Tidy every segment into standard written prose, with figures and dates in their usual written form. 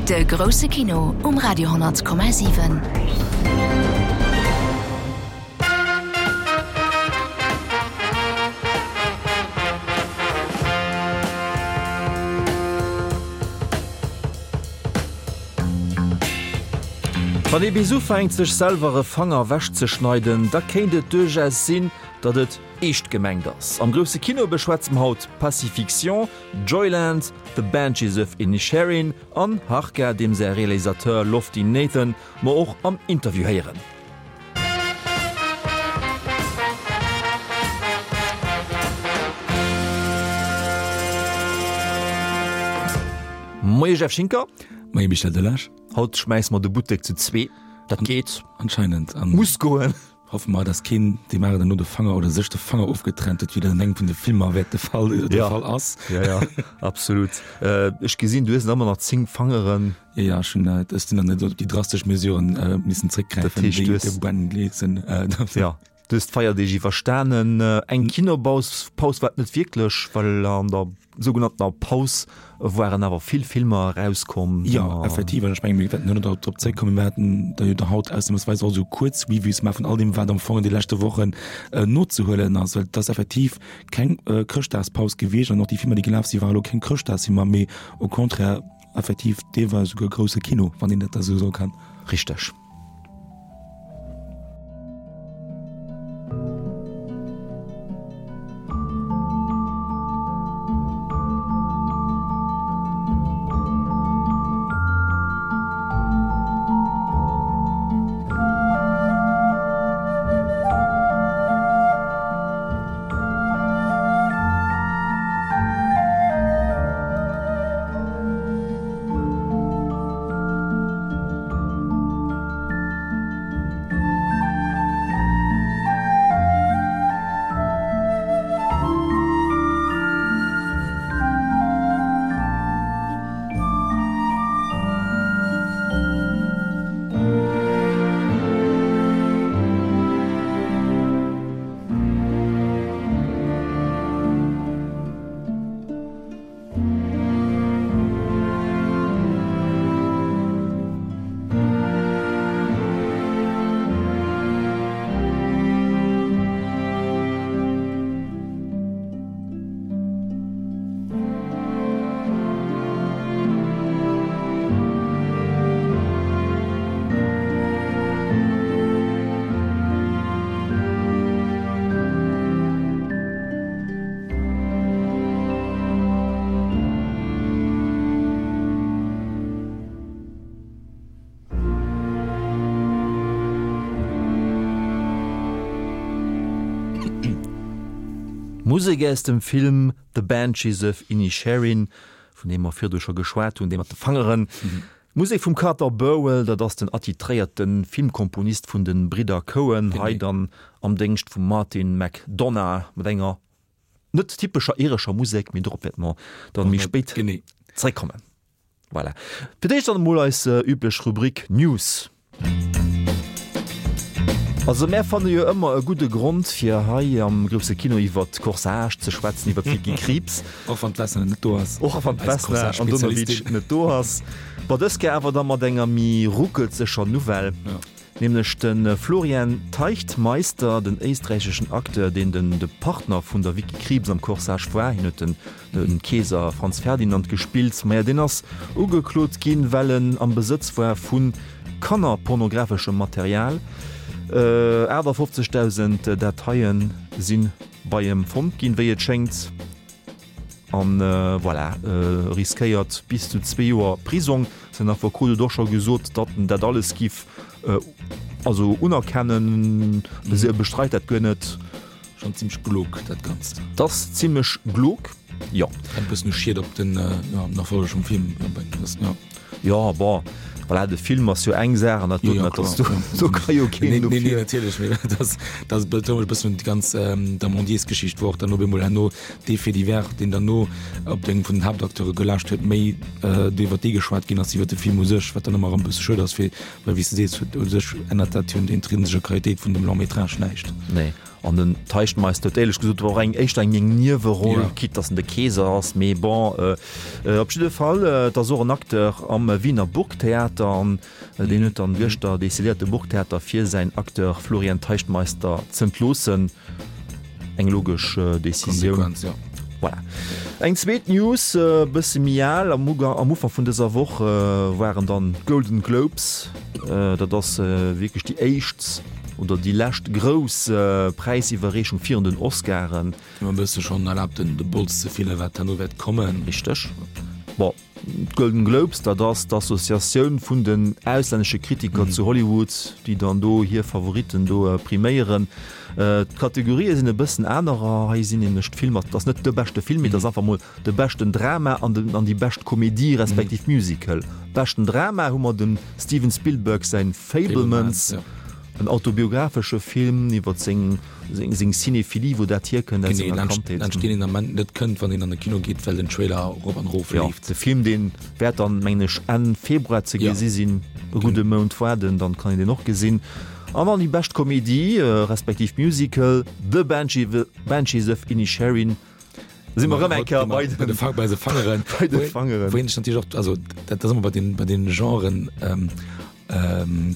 De grousse Kino um Radio 10,7. Wann ee bis ufänkt sech selwer e Fanger ewechzeschneiden, da kéint et duerchaus sinn, datt et eescht gemengt ass. Am grousse Kino beschwätze mer haut Pacifiction, Joyland, The Banshees of Inisherin an Harka, deem säi Realisateur Lofty Nathan mer och am Interview héieren. Moie Jeff Schinker. Moie Michel Delage. Haut schmäisse mer de Buttek zu zwee. Dat geet. Anscheinend. Muss goen. Hoffe mer, dass keen deem aneren herno de Fanger oder sech de Fanger ofgetrennt huet, wéi dat an engem vun de Filmer wäert de Fall, de Ja. Fall ass. Ja, ja, absolut. Äh, ech gesinn, du hues nach ëmmer nach 10 Fangeren. Ja, ja, ech hunn, ech sinn dann net op déi drastesch Mesuren äh, missen Dat zréckgräifen, heescht, wéi du hues- de Ben Gleeson. Äh, Ja, du hues d'Feierdeeg iwwerstanen. Eng Kinobaus Paus war et net wierklech, well an der sougenanntener Paus waren awer vill Filmer erauskomm. Jo, effektiv, an ech mengen, mir wäerten duerno drop zréckkommen, mir haten da jo da haut ausnahmsweis och esou kuerz Reviews gemaach vun all deem, wat am Fong an de leschte Wochen nozehuelen ass, well et ass effektiv keng Chrëschtdagspaus gewiescht an och déi Filmer, déi gelaf sinn, ware lo keng Chrëschtdagsfilmer, mee au contraire effektiv deelweis esouguer grousse Kino, wann een dat da esou soe kann. Richteg. Musek aus dem Film The Banshees of Inisherin, vun deem mer virdu scho geschwat hunn, dee mat de Fangeren. D'Musek vum Carter Burwell, dat ass den attitréierte Filmkomponist vun de Bridder Coen, hei dann am Déngscht vum Martin McDonagh mat enger net typescher irescher Musek, mee dorop wäerte mer dann méi spéit zeréckkommen. Voilà. Fir d'éischt dann emol eis üblech Rubrik News. Also mär fanne jo ëmmer e gudde Grond fir hei am grousse Kino iwwert Corsage ze schwätzen, iwwert d'Vicky Krieps. Och wann d'Vesna net do ass. Och wann d'Vesna Andonovic net do ass. Bon, dës Kéier awer da mat enger méi ruckelzeger Nouvelle. Nämlech de Florian Teichtmeister, den éisträicheschen Acteur, deen den de Partner vun der Vicky Krieps am Corsage war. Hien huet den de Keeser Franz Ferdinand gespillt. Maja, deen ass ugeklot ginn, well en am Besëtz war vu kannerpornographeschem Material. 58.000 Dateie si bei em fonnt ginn, wéi et schéngt. An voilà, riskéiert bis zu zwee Joer Prisong. Säin Affekot huet och scho gesot, datt en dat alles giff also unerkennen. E bestreit dat guer net. Schon zimmlech glog dat Ganzt. 't ass zimmlech glog, jo. Kennt bëssen u Schied op den, jo, den Erfolleg vum Film bréngen, das, jo. Jo, bon, voilà, de Film ass jo eng Saach an dat doten, dat ass do, do ka jo keen Nee, nee, dofir. natierlech, mee dat ass, dat ass betount e bëssen un déi ganz Damondiers-Geschicht, wou och dann op eemol herno dee Fait divers, deen dann no op deng vun den Haaptacteure gelaascht huet, méi do iwwer dee geschwat ginn ass, iwwer de Film u sech, wat dann ëmmer erëm e bësse schued ass, fir, well wéi s de sees, huet u sech ännert dat jo un der intrinsescher Qualitéit vun dem Long-métrage näischt. Nee. An den Teichtmeister huet éierlech gesot och eng éischter eng eng Nieweroll, ja. quitte dass en de Keeser ass, mee bon, äh, äh, op jidde Fall, äh, et ass och en Acteur am Wiener Burgtheater an äh, deen huet dann gëschter decidéiert de Burgtheater fir säin Acteur Florian Teichtmeister z'entloossen. Eng logesch äh, Decisioun. Konsequenz, ja. Voilà. Eng zweet News, e bësse méi al, am Uga am Ufank vun dëser Woch äh, waren dann d'Golden Globes. Äh, dat ass äh, wierklech déi éischt oder déi lescht grouss Präisiwwerreechung virun den Oscaren. Hu mer e bësse schonn erlaabt, den de Bols ze fillen, wat herno wäert kommen. Richteg. Bon, d'Golden Globes, dat ass d'Associatioun vun den auslännesche Kritiker zu Hollywood, déi dann do hir Favoritten do priméieren. D'Kategorië sinn e bëssen anerer. Hei sinn nämlech d'Filmer, et ass net de beschte Film, mee et ass einfach mol de beschten Drama an den an déi bescht Komedie respektiv Musical. Beschten Drama hu mer dem Steven Spielberg säin Fabelmans. En autobiographesche Film iwwer seng seng Cinéphilie, wou dat hierkënnt aus senger Kandheet. Laanscht deen een Ament net kënnt, wann een an de Kino geet, well den Trailer erop an erof leeft. Jo, de Film deen wäert dann, mengen ech, Enn Februar ze gesi sinn. E gudde Mount waarden, dann kann een deen och gesinn. An dann déi bescht Komedie respektiv Musical, The Banshees of Inisherin. Si mer erëm eng Kéier bei de bei de Fangeren. Bei de Fangeren. Wou een sech natierlech och, also dat ass ëmmer bei den bei den Genren,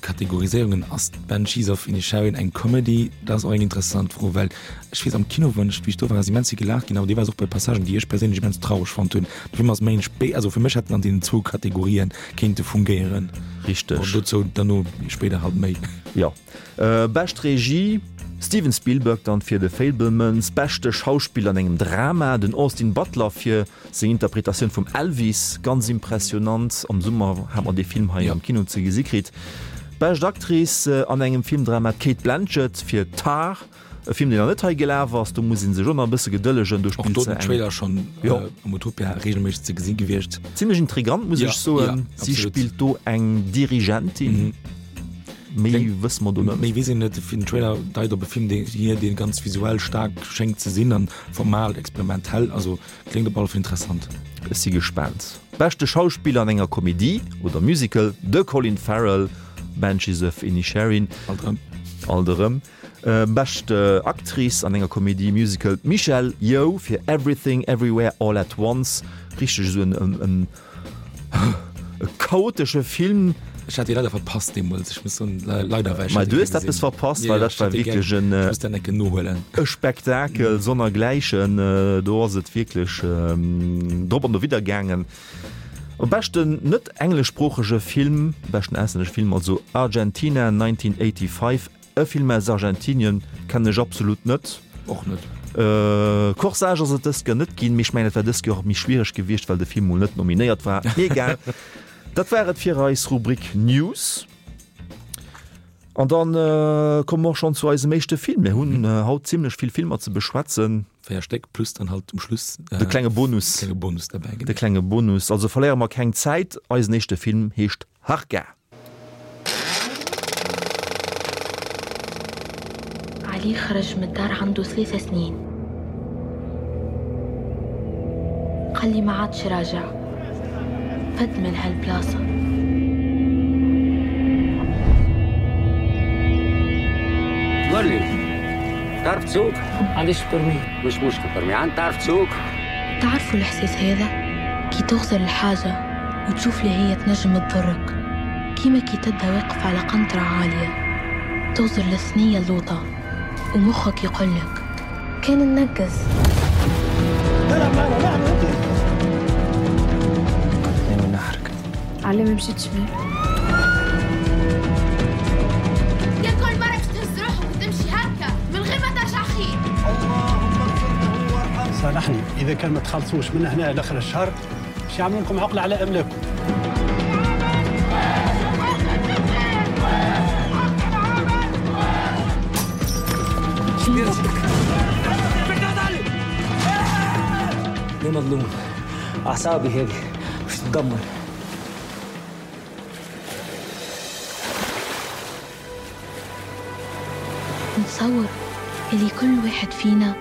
Kategoriséierungen, ass d'Banshees of Inisherin eng Comedy? Dat ass och eng interessant Fro, well ech weess am Kino, wann ech, wéi ech do war, ass immens vill gelaacht ginn, awer deelweis och bei Passagen, déi ech perséinlech immens traureg fonnt hunn. De Film ass méi en Spé, also fir mech hätt en an deenen zwou Kategorien kéinte fungéieren. Richteg. Bon, dozou dann spéider halt méi. Jo. Bescht Regie, Steven Spielberg dann fir The Fabelmans, beschte Schauspiller an engem Drama, den Austin Butler fir seng Interpretatioun vum Elvis, ganz impressionant, am Summer hat mer dee Film hei am Kino ze gesi kritt. Bescht Actrice an engem Filmdrama, d'Cate Blanchett fir Tar, E Film deen nach net hei gelaf ass, do muss een sech och nach e bësse gedëllegen, do spillt se eng. Och do den Trailer schonn am Utopia regelméisseg ze gesi gewiescht. Zimlech intrigant muss ech soen. Si spillt do eng Dirigentin. Méi wësse mer do net. Méi weess een net. Den Trailer deit op e Film dee hier, dee ganz visuell staark schéngt ze sinn an formal experimentell. Also kléngt op alle Fall interessant. Ech si gespaant. Beschte Schauspiller an enger Komedie oder Musical, de Colin Farrell, Banshees of Inisherin. Alt erëm. Alt erëm. Bescht Actrice an enger Komedie Musical, d'Michelle Yeoh fir Everything Everywhere All at Once. Richteg esou en e chaotesche Film. Ech hat dee leider verpasst deemools, ech muss soen, leider, well ech hat dee gär gesinn. Mä du hues eppes verpasst, well dat war wierklech en. Ech muss dat eng Kéier nohuelen. E Spektakel sonnergläichen. Do ass et wierklech drop an dowidder gaangen. Beschten net engleschsproochege Film, beschten auslännesche Film also Argentina 1985. E Film aus Argentinien kennen ech absolut net. Och net. Corsage ass et dëst Joer net ginn, mee ech mengen et war dëst Joer och méi schwiereg gewiescht, well de Film mol net nominéiert war. Mee egal, dat war et fir eis Rubrik News. An dann komme mer och schonn zu eisem éischte Film. Mir hunn haut zimlech vill Filmer ze beschwätzen. 4 Stéck plus dann halt um Schluss de klenge Bonus. Klenge Bonus derbäi, genau. De klenge Bonus. Also verléiere mer keng Zäit, eisen éischte Film heescht Harka. علي خرج من الدار عنده ثلاثة سنين قال لي ما عادش راجع فد من هالبلاصة قول لي تعرف تسوق؟ عنديش permis مش مشكل permis عند تعرف تسوق؟ تعرفوا الإحساس هذا كي تغزر الحاجة وتشوف اللي هي تنجم تضرك كيما كي تبدا واقف على قنطرة عالية تغزر للثنية اللوطة ومخك يقولك كان ننقز تلعب معنا نحن انت من نحرك علي ما مشيتش بيه يا كل مرة باش تهز روحك وتمشي هكا من غير ما ترجع خير اللهم اغفر له وارحمه صالحني اذا كان ما تخلصوش من هنا لاخر الشهر باش يعملوا لكم عقله على املاككم ليه مظلوم اعصابي هذه مش تدمر نتصور اللي كل واحد فينا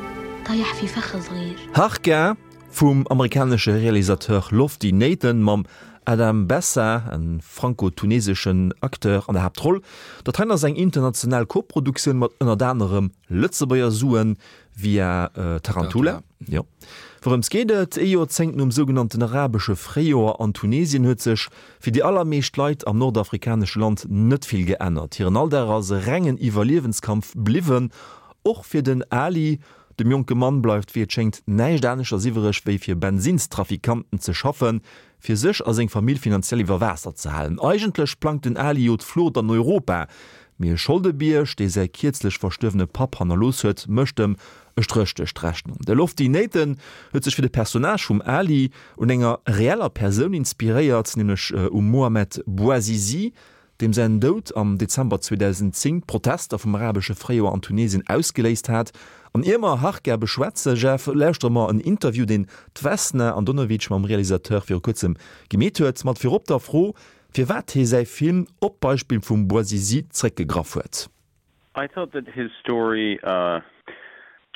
طايح في فخ صغير Harka. Vum amerikanesche Realisateur Lofty Nathan mam Adam Bessa, e franco-tuneseschen Acteur, an der Haaptroll. Dat heien ass eng international Koproduktioun mat ënnert anerem Lëtzebuerger Suen via Tarantula. Jo. Wourëms geet et? Ee Joerzéngt nom sougenannten arabesche Fréijoer an Tunesien huet sech fir déi allermeescht Leit am nordafrikanesche Land net vill geännert. Hiren Alldag ass e rengen Iwwerliewenskampf bliwwen. Och fir den Ali, Dem jonke Mann bleift wéi et schéngt näischt aneschters iwwereg wéi fir Bensinnstrafikanten ze schaffen, fir sech a seng Famill finanziell iwwer Waasser ze halen. Eigentlech plangt den Ali jo d'Flucht an Europa, mee e Scholdebierg, dee säi kierzlech verstuerwene Papp hannerlooss huet, mécht em e Stréch duerch d'Rechnung. De Lofty Nathan huet sech fir de Personnage vum Ali un enger reeller Persoun inspiréiert, nämlech um Mohamed Bouazizi, deem säin Doud am Dezember 2010 d'Protester vum arabesche Fréijoer an Tunesien ausgeléist hat. An ier mer Harka beschwätzen, Jeff, lauschtere mer en Interview, deen d'Vesna Andonovic mam Realisateur viru kuerzem gemeet huet, mat virop der Fro, firwat hie säi Film op d'Beispill vum Bouazizi zréckgegraff huet. I thought that his story uh,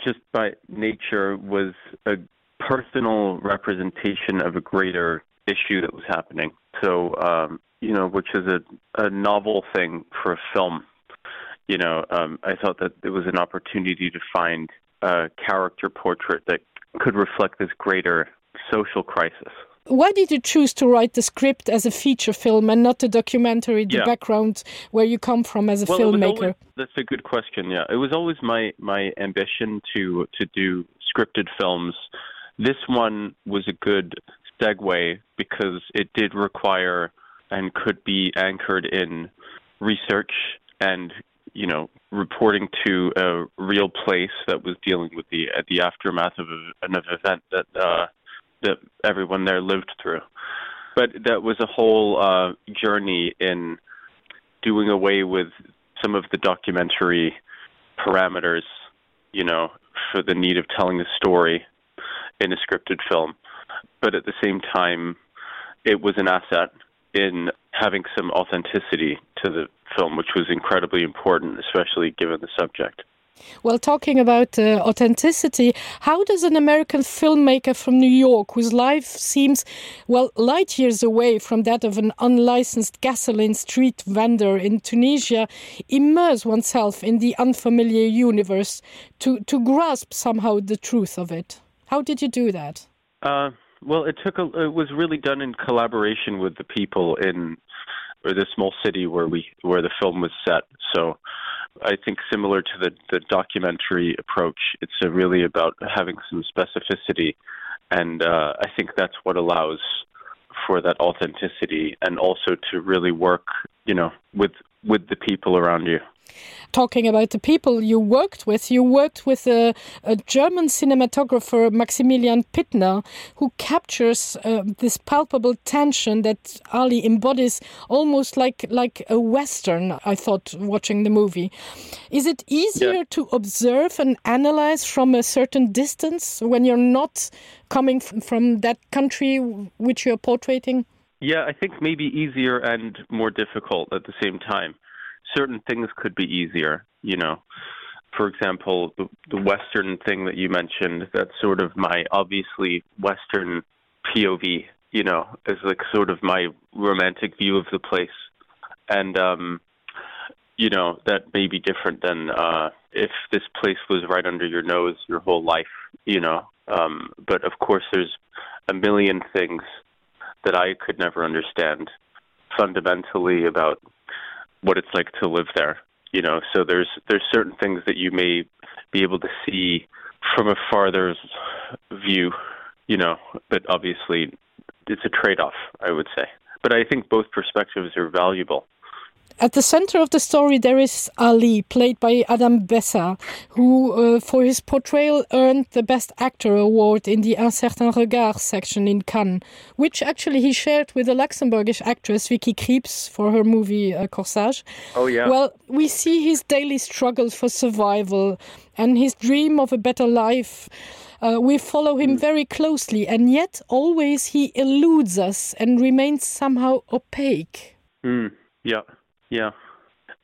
just by nature was a personal representation of a greater issue that was happening. So um, you know, which is a, a novel thing for a film. You know, um, I thought that it was an opportunity to find a character portrait that could reflect this greater social crisis. Why did you choose to write the script as a feature film and not a documentary, the yeah. background where you come from as a well, filmmaker? Always, that's a good question. Yeah, it was always my, my ambition to, to do scripted films. This one was a good segue because it did require and could be anchored in research and you know reporting to a real place that was dealing with the uh, the aftermath of a, an event that uh, that everyone there lived through but that was a whole uh, journey in doing away with some of the documentary parameters you know for the need of telling a story in a scripted film but at the same time it was an asset in having some authenticity to the film which was incredibly important especially given the subject Well, talking about uh, authenticity, how does an American filmmaker from New York, whose life seems well light years away from that of an unlicensed gasoline street vendor in Tunisia, immerse oneself in the unfamiliar universe to, to grasp somehow the truth of it? How did you do that? Uh, well, it took a, it was really done in collaboration with the people in or the small city where we where the film was set. So I think similar to the, the documentary approach, it's a really about having some specificity. And uh, I think that's what allows for that authenticity and also to really work, you know, with with the people around you talking about the people you worked with you worked with a, a German cinematographer Maximilian Pittner who captures uh, this palpable tension that Ali embodies almost like like a western I thought watching the movie is it easier yeah. to observe and analyze from a certain distance when you're not coming from that country which you're portraiting yeah I think maybe easier and more difficult at the same time certain things could be easier you know for example the, the western thing that you mentioned that's sort of my obviously western POV you know is like sort of my romantic view of the place and um you know that may be different than uh if this place was right under your nose your whole life you know um but of course there's a million things that I could never understand fundamentally about what it's like to live there you know so there's there's certain things that you may be able to see from a farther view you know but obviously it's a trade-off I would say but I think both perspectives are valuable At the center of the story there is Ali, played by Adam Bessa, who uh, for his portrayal earned the Best Actor award in the Un certain regard section in Cannes, which actually he shared with the Luxembourgish actress Vicky Krieps for her movie uh, Corsage. Oh, yeah. Well, we see his daily struggle for survival and his dream of a better life. Uh, we follow him mm. very closely, and yet always he eludes us and remains somehow opaque. Mm. Yeah, yeah,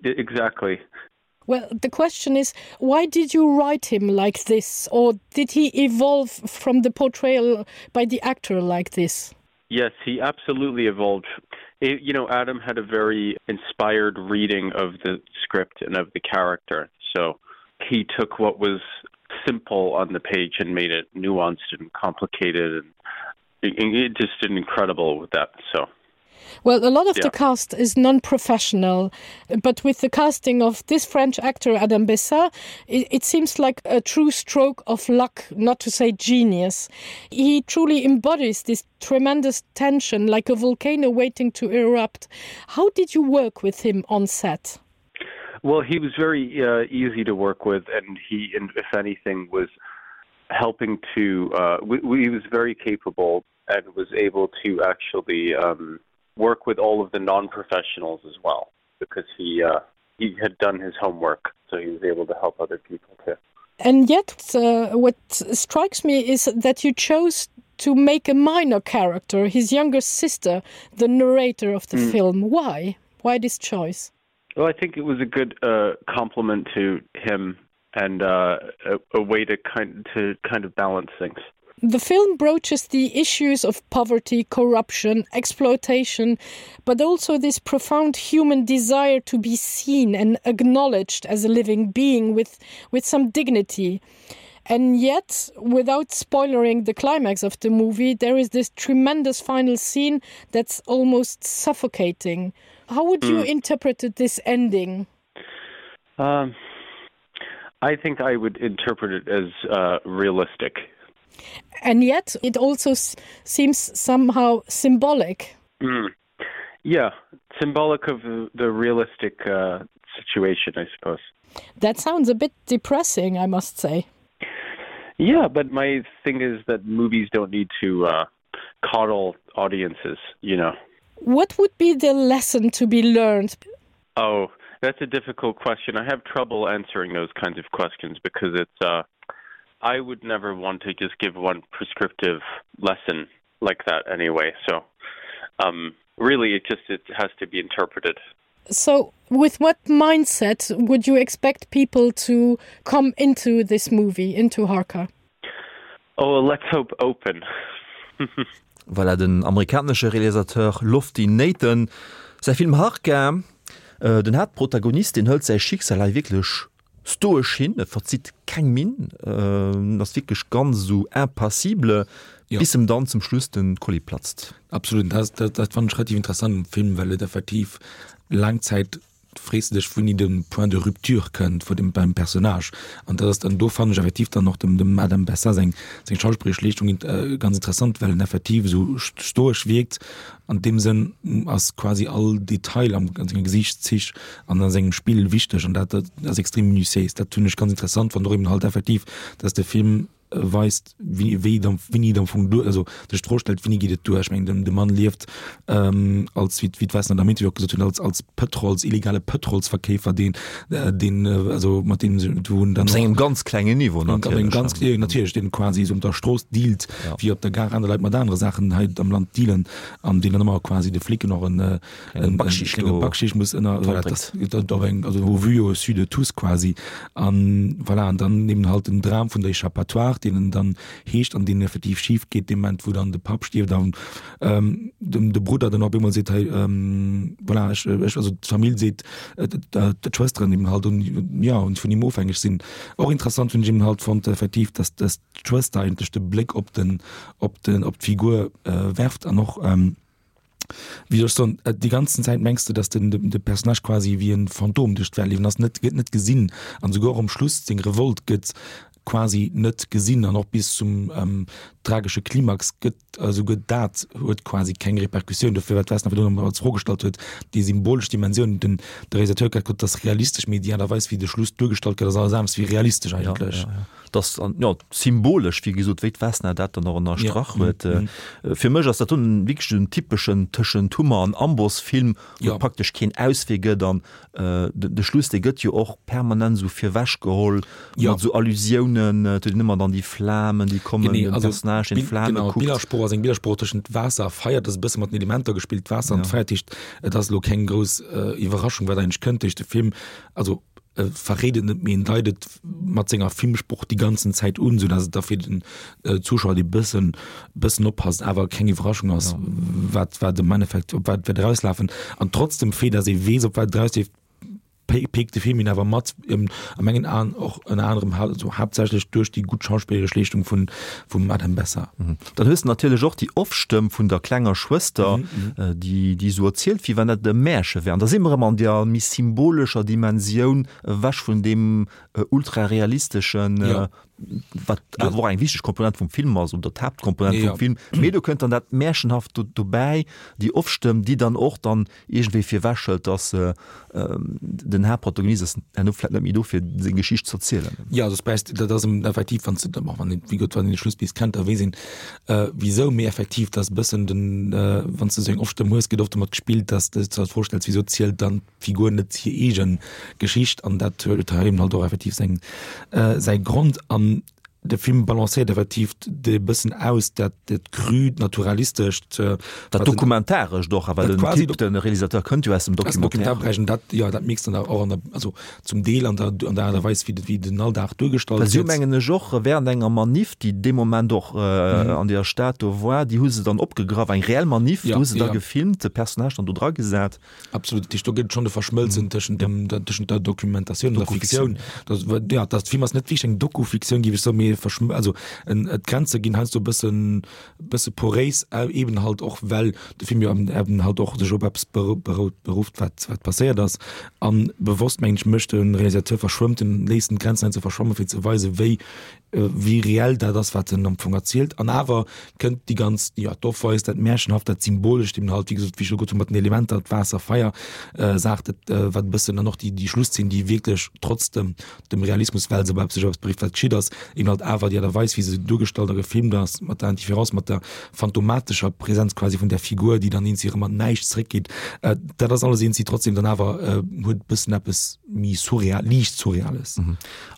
exactly. Well, the question is, why did you write him like this, or did he evolve from the portrayal by the actor like this? Yes, he absolutely evolved. It, you know, Adam had a very inspired reading of the script and of the character. So he took what was simple on the page and made it nuanced and complicated and it, it just did incredible with that. So Well, a lot of yeah. the cast is non-professional, but with the casting of this French actor Adam Bessa, it, it seems like a true stroke of luck, not to say genius. He truly embodies this tremendous tension like a volcano waiting to erupt. How did you work with him on set? Well, he was very uh, easy to work with, and he, and if anything, was helping to. Uh, we, we, he was very capable and was able to actually um, work with all of the non-professionals as well because he uh, he had done his homework, so he was able to help other people too. And yet, uh, what strikes me is that you chose to make a minor character, his younger sister, the narrator of the mm. film. Why? Why this choice? Well, I think it was a good uh, compliment to him and uh, a, a way to kind to kind of balance things. The film broaches the issues of poverty, corruption, exploitation, but also this profound human desire to be seen and acknowledged as a living being with, with some dignity. And yet, without spoilering the climax of the movie, there is this tremendous final scene that's almost suffocating. How would you mm. interpret this ending? Um, I think I would interpret it as uh, realistic. And yet it also seems somehow symbolic. Mm. Yeah, symbolic of the realistic uh, situation, I suppose. That sounds a bit depressing, I must say. Yeah, but my thing is that movies don't need to uh, coddle audiences, you know. What would be the lesson to be learned? Oh, that's a difficult question. I have trouble answering those kinds of questions because it's uh, I would never want to just give one prescriptive lesson like that anyway. So um, really it just it has to be interpreted. So with what mindset would you expect people to come into this movie into Harka? Oh, let's hope open. Voilà den amerikanesche Realisateur Lofty Nathan säi Film Harka. Den Haaptprotagonist, deen hëlt säi Schicksal hei wierklech stoesch hin, e verzitt keng Minn, en ass wierklech ganz esou impassible, bis em dann zum Schluss de Kolli platzt. Absolut, dat, dat, dat fannen ech relativ interessant um Film, well et effektiv laang Zäit frees de dech wouini de Point de rupture kënnt vu dem beim Personnage an dat ass dann do fannen ech effektiv dann och dem dem Adam Bessa seng seng schauspilleresch Leeschtung ganz interessant, well en effektiv esou stoesch wierkt. An deem Sënn ass quasi all Detail am an senge Gesiichtszich an a sengem Spill wichteg an dat ass extrem minutiéis. Dat hunn ech ganz interessant fonnt, och eben halt effektiv, dass de Film weist, wéi wéi et am wéini et am Fong duer, also sech d'Fro stellt, wéini geet et duer? Ech mengen, den de Mann lieft als, wéi wéi d'Wesner am Interview och gesot hunn, als als Pëtrols, illegale Pëtrolsverkeefer, deen deen also mat deem se wou en dann Op sengem ganz klengen Niveau natierlech. Op engem ganz, jo natierlech, deen quasi esou op der Strooss dealt, wéi op der Gare aner Leit mat anere Saachen hei am Land dealen an deen dann ëmmer quasi de Flicken och en en Backschicht klenge Backschicht muss ënner voilà, das, dat op eng also au vu au su de tous quasi an voilà an dann eben halt den Dram vun der Échappatoire, deen en dann heescht an deen effektiv schif geet dee Moment wou dann de Papp stierft an ähm, dem de Brudder dann op eemol seet hei ähm, voilà, ech, ech also d'Famill seet äh, d'Schwësteren eben halt un ja und vun him ofhängeg sinn. Och interessant hunn ech eben halt fonnt effektiv, dass dass d'Schwëster eigentlech de Bléck op den op den op d'Figur äh, werft an och ähm, wéi soll ech soen, déi ganzen Zäit mengs de, dass den de Personnage quasi wéi e Phantom duerch d'Welt leeft an ass net gëtt net gesinn an esouguer och um Schluss seng Revolt gëtt quasi net gesinn an och bis zum ähm, tragesche Klimax gëtt esouguer dat huet quasi keng Repercussioun. Dofir wat d'Vesna virdrun als Fro gestallt huet, déi symbolesch Dimensioun, den de Realisateur huet grad gesot, dat ass realistesch, mee déi Aart a Weis wéi de Schluss duergestallt gëtt ass alles anescht wéi realistesch eigentlech. Ja, ja, ja. Dat ass jo symbolesch, wéi gesot, wéi d'Vesna dat dann och ënnerstrach huet. Fir mech ass dat dunn wierklech en typeschen tëschent Hummer an Amboss-Film, wou et praktesch keen Auswee gëtt an De Schluss, dee gëtt jo och permanent esou virwechgeholl mat esou Allusiounen, et huet een ëmmer dann déi Flamen, déi kommen, den Personnage, deen d'Flame kuckt. D'Billersprooch ass eng Billersprooch tëschent Waasser a Feier, dat ass e bësse mat den Elementer gespillt, Waasser an Feier, dat heescht, et ass elo keng grouss Iwwerraschung, wat eigentlech kënnt duerch de Film. Also. E verréit et net, mee en deit et mat senger Filmsproch déi ganzen Zäit un, sou dass et da fir den Zuschauer, dee bëssen, bëssen oppasst, awer keng Iwwerraschung ass, wat, wat am Endeffekt, op wat wäert erauslafen. An trotz dem Fait, dass ee weess, op wat et erausleeft, pikt de Film een awer mat, a mengen Aen och ënner anerem, also haaptsächlech duerch déi gutt schauspilleresch Leeschtung vun, vum Adam Bessa. Dann hues de natierlech och déi Off-Stëmm vun der klenger Schwëster, déi, déi esou erzielt, wéi wann dat e Märche wär. An da si mer erëm an där méi symbolescher Dimensioun, ewech vun deem ultrarealisteschen, wat awer och eng wichteg Komponent vum Film ass oder d'Haaptkomponent vum Film. Mee do kënnt dann dat Märchenhaft dobäi, déi Off-Stëmm, déi dann och dann iergendwéi virwechhëlt, dass den Haaptprotagonist ass herno vläicht net méi do, fir seng Geschicht ze erzielen. Jo, also es dat ass effektiv, wann s de, bon, wann een, wéi gesot, wann een de Schluss bis kennt, da weess een, wisou. Mee effektiv, dat ass e bëssen den, wann s de esou eng Off-Stëmm hues, gëtt oft domat gespillt, dass de der d'Fro stells, wisou zielt dann d'Figur net hir eege Geschicht? An dat huet hei eben halt och effektiv seng, säi Grond. An de Film balancéiert effektiv de bëssen aus, dat dat crüt, naturalistescht, Dat Dokumentarescht och, awer den Typ, de Realisateur kënnt jo aus dem Documentaire. Dat, jo, dat mixt dann och an der, also zum Deel an der, an der Aart a Weis, wéi wéi den Alldag duergestallt gëtt. Well si hu mengen ech och während enger Manif, déi dee Moment och an deer Stad do war, déi hu se dann opgegraff, eng reell Manif, do hu se da gefilmt, de Personnage dann do dragesat. Absolut, dat heescht, do gëtt et schonn e Verschmëlzen tëschent dem, der, tëschent der Dokumentatioun an der Fiktioun. Dat, ja, dat Film ass net wierklech eng Dokufiktioun, géif ech soen, mee e Verschmël-, also en, d'Grenze ginn heiansdo e bëssen, bësse poréis, eben halt och well de Film jo eben halt och sech op eppes berout, berufft, wat, wat passéiert ass. A bewosst, mengen ech, mécht de Realisateur, verschwëmmt en, léisst en d'Grenzen heiansdo verschwammen, fir ze weisen, wéi wéi reell dat ass, wat en am Fong erzielt. An awer kënnt déi ganz, jo, d'Offweis, dat Märchenhaft, dat Symbolescht eben halt, wéi gesot, wéi ech elo gesot hunn, mat den Elementer, d'Waasser, Feier, Saach, dat, wat e bëssen, an och déi, déi Schlusszeen, déi wierklech trotz dem, dem Realismus, well se op eppes, sech op eppes berifft, wat geschitt ass, eben halt awer déi Aart a Weis, wéi se duergestallt a gefilmt ass, mat der Indifférence, mat der phantomatescher Präsenz quasi vun där Figur, déi dann eenzi erëm an d'Näischt zréckgeet, dat ass alles eenzi trotzdem dann awer, huet e bëssen eppes méi surreal, liicht Surreales.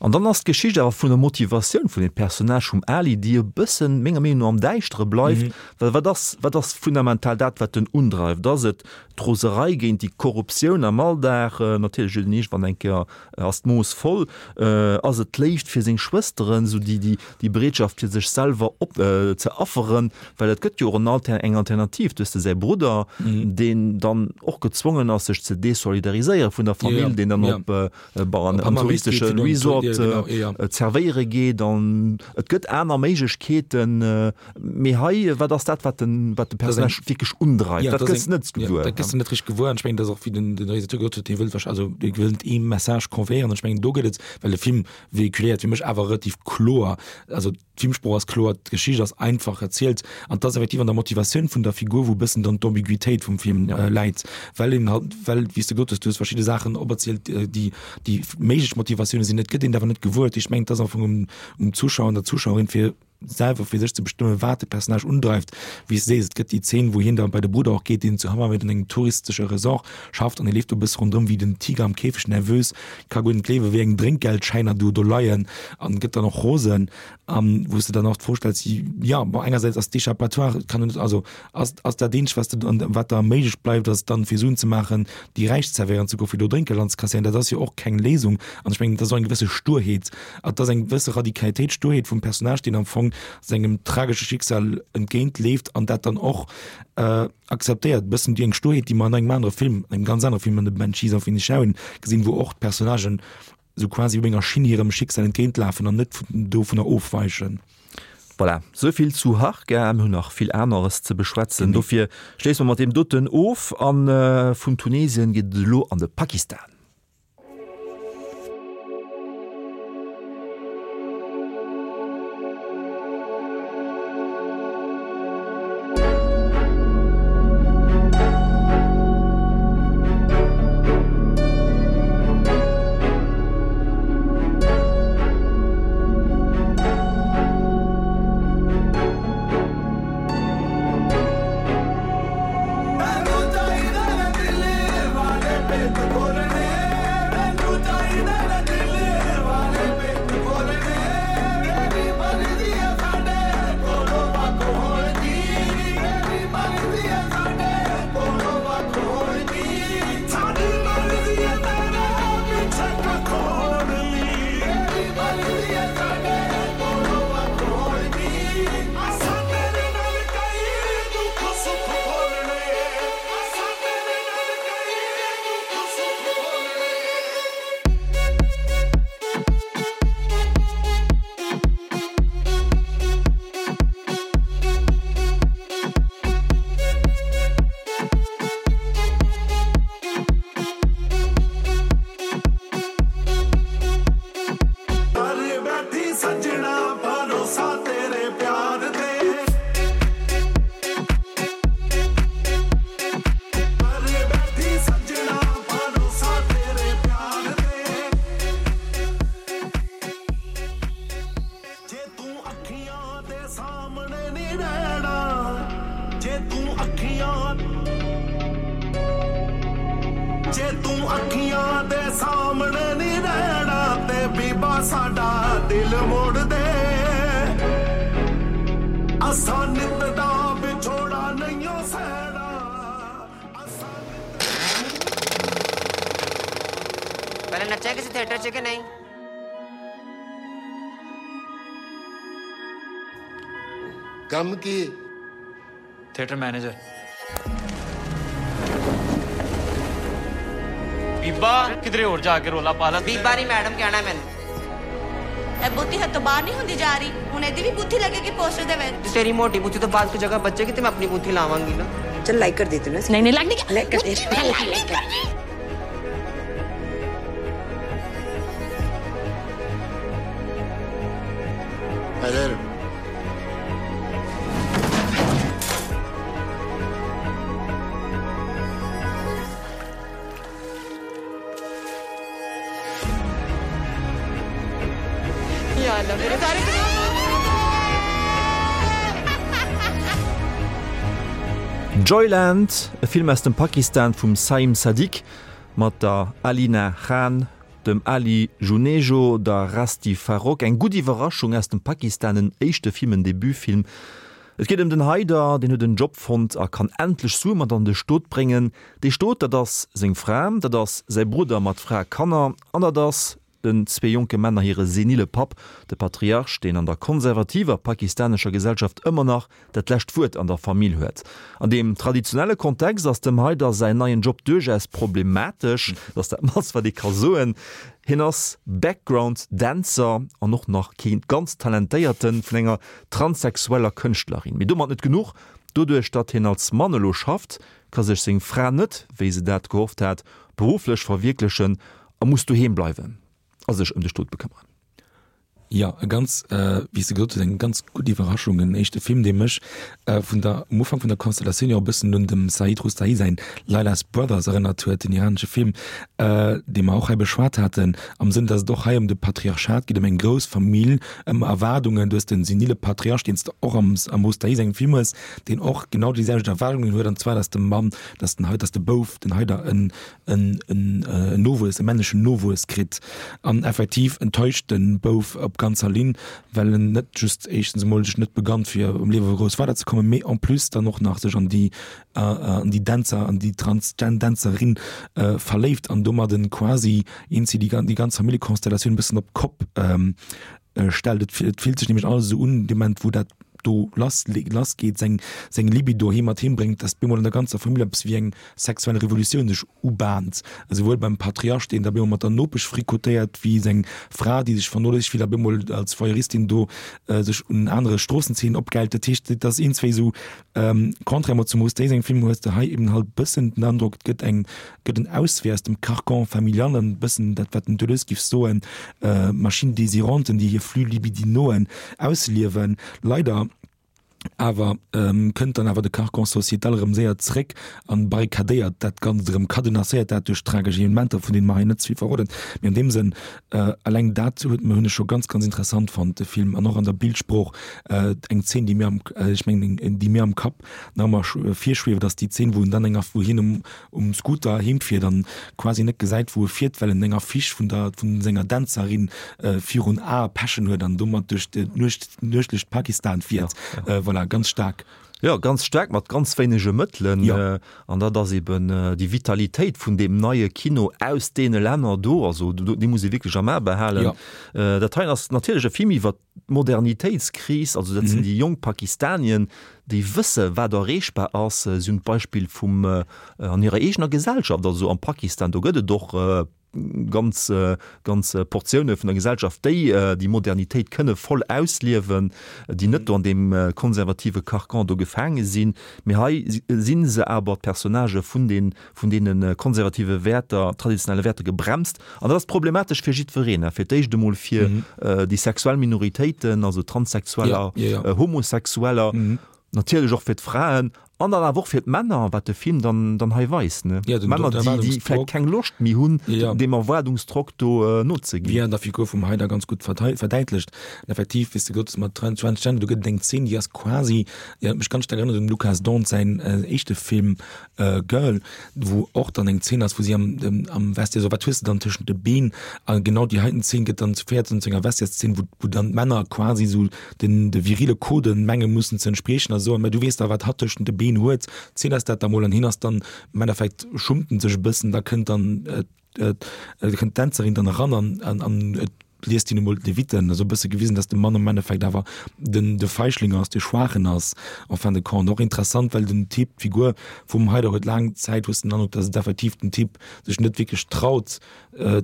An dann ass d'Geschicht awer vun der Motivatioun vun dem Personnage vum Ali, déi e bëssen, menger Meenung no, am Däischtere bleift. Well wat ass, wat ass fundamental dat, wat en undreift? Ass et d'Roserei géint déi Korruptioun am Alldag? Natierlech huet en iergendwann eng Kéier, ass d'Mooss voll. Ass et d'Léift fir seng Schwësteren, esou déi, déi, déi Bereetschaft fir sech selwer op, ze afferen? Well et gëtt jo och en Alter, eng Alternativ. Du hues de säi Brudder, deen dann och gezwongen ass, sech ze desolidariséiere vun der Famill, deen dann op, Bon, an touristesche Resort zerwéiere geet an et gëtt aner Méiglechkeeten. Mee hei, wat ass dat, wat den, wat de Personnage wierklech undreift? Dat gëss de net gewuer. Dat gëss de net richteg gewuer. An ech mengen, dat ass och, wéi den Realisateur gesot huet, hie wëllt wahrscheinlech, also hie wëllt ee Message conveyéieren. An ech mengen, do gëtt et, well de Film véhiculéiert fir mech awer relativ kloer, also D'Filmsprooch ass kloer, d'Geschicht ass einfach erzielt an et ass effektiv an der Motivatioun vun der Figur, wou e bëssen dann d'Ambiguitéit vum Film läit, well een halt, well, wéi s de gesot hues, du hues verschidde Saachen operzielt, déi déi méiglech Motivatioune sinn, et gëtt een et awer net gewuer. Ech mengen, et ass am Fong um um Zuschauer an der Zuschauerin, fir selwer fir sech ze bestëmmen, wat de Personnage undreift. Wéi s de sees, et gëtt déi Zeen, wou hien da bei de Brudder och geet, deen zu Hammamet an engem touristesche Resort schafft an e leeft do e bësse ronderëm wéi den Tiger am Käfeg, nervös, ka guer net gleewen, wéi eng Drénkgeldschäiner do do leien an gëtt dann och rosen an wou s de dann och d'Fro stells, jo, bon, engersäits ass d'Échappatoire, kann net, also ass, ass dat eenzegt, wat s de, an wat der méiglech bleift, ass dann fir Suen ze maachen, déi Räich zerwéieren ze goen, fir do Drénkgeld anzekasséieren. Dat ass jo och keng Léisung an ech mengen, dat ass och eng gewësse Sturheet, et ass eng gewësse Radikalitéit, Sturheet vum Personnage, deen am Fong sengem tragesche Schicksal entgéint leeft an dat dann och Akzeptéiert e bëssen déi eng Sturheet, déi mer an engem anere Film, engem ganz anere Film, an The Banshees of Inisherin gesinn, wou och d'Personnagen esou quasi op enger Schinn hirem Schicksal entgéintlafen an net dovunner ofweichen. Voilà, esou vill zu Harka. Mir hunn nach vill aneres ze beschwätzen, dofir schléisse mer mat deem doten of. A vun Tunesien geet et elo an de Pakistan. ਅੱਖੀਆਂ ਜੇ ਤੂੰ ਅੱਖੀਆਂ ਦੇ ਸਾਹਮਣੇ ਨਹੀਂ ਰਹਿਣਾ ਤੇ ਬੀਬਾ ਸਾਡਾ ਦਿਲ ਮੋੜ ਦੇ ਅਸਾਂ ਨਿਤ ਦਾ ਵਿਛੋੜਾ ਨਹੀਂ ਓ ਸਹਿਣਾ ਪਹਿਲੇ ਨੱਚਿਆ ਕਿਸੇ ਥੀਏਟਰ 'ਚ ਕਿ ਨਹੀਂ ਕੰਮ ਕੀ ਥੀਏਟਰ ਮੈਨੇਜਰ ਬੀਬਾ ਕਿਧਰੇ ਹੋਰ ਜਾ ਕੇ ਰੋਲਾ ਪਾ ਲੈ ਬੀਬਾ ਨਹੀਂ ਮੈਡਮ ਕਹਿਣਾ ਮੈਨੂੰ ਇਹ ਬੁੱਧੀ ਹੱਥੋਂ ਬਾਹਰ ਨਹੀਂ ਹੁੰਦੀ ਜਾ ਰਹੀ ਹੁਣ ਇਹਦੀ ਵੀ ਬੁੱਧੀ ਲੱਗੇਗੀ ਪੋਸਟਰ ਦੇ ਵਿੱਚ ਤੇਰੀ ਮੋਟੀ ਬੁੱਥੀ ਤੋਂ ਬਾਅਦ ਕੋਈ ਜਗ੍ਹਾ ਬਚੇਗੀ ਤੇ ਮੈਂ ਆਪਣੀ ਬੁੱਥੀ ਲਾਵਾਂਗੀ ਨਾ चल लाइक कर देती हूँ ना नहीं नहीं लाइक नहीं लाइक कर दे लाइक कर अगर ਯਾ ਅੱਲਾ ਮੇਰੇ ਸਾਰੇ Joyland, e Film aus dem Pakistan vum Saim Sadiq mat der Alina Khan, dem Ali Junejo, der Rasti Farooq. Eng gutt Iwwerraschung aus dem Pakistan, en éischte Film, en Debutfilm. Et geet ëm den Haider, deen huet en Job fonnt a kann endlech Sue mat an de Stot bréngen. Dee Stot, dat ass seng Fra, dat ass säi Brudder mat Fra a Kanner an dat ass den zwee jonke Männer hire senile Papp, de Patriarch, deen an der konservativer pakistanescher Gesellschaft ëmmer nach dat lescht Wuert an der Famill huet. An deem traditionelle Kontext ass dem Haider säin neien Job duerchaus problematesch, dat ass dat mannst wat ee ka soen. Hien ass Background Dänzer an och nach kee ganz talentéierten vun enger transsexueller Kënschtlerin. Mee domat net genuch, doduerch datt hien als Mann elo schafft, ka sech seng Fra net, wéi se dat gehofft hat, berufflech verwierklechen a muss doheem bleiwen a sech ëm de Stot bekëmmeren. Jo, e ganz, wéi s de gesot hues, eng ganz gutt Iwwerraschung. En éischte Film, dee mech vun der, um Ufank vun der Konstellatioun jo e bëssen un dem Saeed Roustayi säin Leila's Brothers erënnert huet, den iranesche Film, dee mer och hei beschwat haten, am Sënn, datt et och hei ëm de Patriarchat geet, ëm eng grouss Famill, ëm Erwaardungen. Du hues den senile Patriarch, deen s de och am, am Roustayi sengem Film hues, deen och genau déi selwecht Erwaardungen huet, an zwar, datt de Mann, datt den, datt de Bouf, den Haider, en, en Nowuess, e männlechen Nowuess kritt an effektiv enttäuscht de Bouf op ganzer Linn, well en net just éischtens emol sech net begannt fir am Liewe grouss weiderzekommen, mee en plus dann och nach sech an déi an déi Dänzer, an déi Transgen-Dänzerin verléift an domadden quasi eenzi déi ganz Familljekonstellatioun e bëssen op d'Kopp stellt. Et fillt sech nämlech alles esou un, dee Moment wou dat do lass lass geet, seng seng Libido hie mat heem bréngt, datt bemol an der ganzer Famill eppes wéi eng sexuell Revolutioun sech ubahnt, esouwuel beim Patriarch, deen da bemol mat der Nopesch fricotéiert, wéi seng Fra, déi sech vernoléissegt fillt a bemol als Voyeuristin do sech un anere Stroossenzeenen opgäilt. Dat heescht, et ass iergendswéi esou, Contrairement zum Rose Day sengem Film hues de hei eben halt bëssen den Androck, et gëtt eng, gëtt en Auswee aus dem Carcan familial an bëssen dat wat den Deleuze giff soen, Machine désiranten, déi hir Flux libidinoen ausliewen. Leider awer kënnt dann awer de Carcan sociétal erëm séier zréck an barrikadéiert dat Ganzt erëm, cadenasséiert dat duerch tragesch Evenementer, vun deene mer hei net ze vill verroden. Mee an deem Sënn, eleng dat huet hunn ech scho ganz, ganz interessant fonnt, de Film, an och an der Bildsprooch, Eng Zeen, déi mir am, ech mengen, déi mir am Kapp nach ëmmer virschwieft, ass déi Zeen, wou en dann enger, wou hien um, um Scooter heem fiert an quasi net gesäit, wou e fiert, well en eng Affiche vun der, vun senger Dänzerin virun Ae pechen huet an domat duerch d'Nuecht, nuechtlecht Pakistan fiert. Voilà, ganz staark. Jo, ganz staark, mat ganz wéinege Mëttelen. An dat ass eben déi Vitalitéit vun deem neie Kino aus deene Länner do. Also dee muss ee wierklech am A behalen. Dat heien ass natierlech e Film iwwer D'Modernitéitskris, also dat sinn déi jonk Pakistanien, déi wësse wat erreechbar ass. Si hunn d'Beispill vum an hirer eegener Gesellschaft, also am Pakistan, do gëtt et och ganz ganz Portioune vun der Gesellschaft, déi déi Modernitéit kënne voll ausliewen, déi net do an deem konservative Carcan do gefaange sinn. Mee hei si se awer, d'Personnagë vun den vun deene konservative Wäerter, traditionelle Wäerter gebremst. An dat ass problematesch fir jiddwereen, fir d'éischt emol fir déi sexuell Minoritéiten, also Transsexueller, Homosexueller, natierlech och fir d'Fraen. An dann awer och fir d'Männer, wat de Film dann, dann hei weist, ne? Ja, den Männer, déi, déi Erwaardungsdrock. vläicht keng Loscht méi hunn, Ja. deem Erwaardungsdrock do nozeginn. Wéi an der Figur vum Haider ganz gutt verdei-, verdäitlecht. An effektiv, wéi s de gesot hues, mat Tran-, Transgender, do gëtt et eng Zeen, déi ass quasi, déi huet mech ganz staark erënnert un dem Lukas Dhont säin éischte Film Girl, wou och dann eng Zeen ass, wou si am, am Vestiaire, so wat hues de dann tëschent de Been? A genau déi heiten Zeen gëtt dann, féiert dann zu enger Vestiaires-Zeen, wou, wou dann d'Männer quasi esou den de virile Coden menge mussen ze entspriechen a soen, mä du weess da wat hatt tëschent de Been huet, ziel eis dat da mol an hien ass dann am Endeffekt schummt en sech e bëssen, da kënnt dann kënnt d'Dänzerin dann eran an an an et liest hien emol d'Leviten, esou e bësse gewisen, datt de Mann am Endeffekt awer den de Feichling ass, de Schwaachen ass en fin de compte. Och interessant, well den Typ, d'Figur vum Haider huet laang Zäit hues den Androck, datt et effektiv den Typ sech net wierklech traut,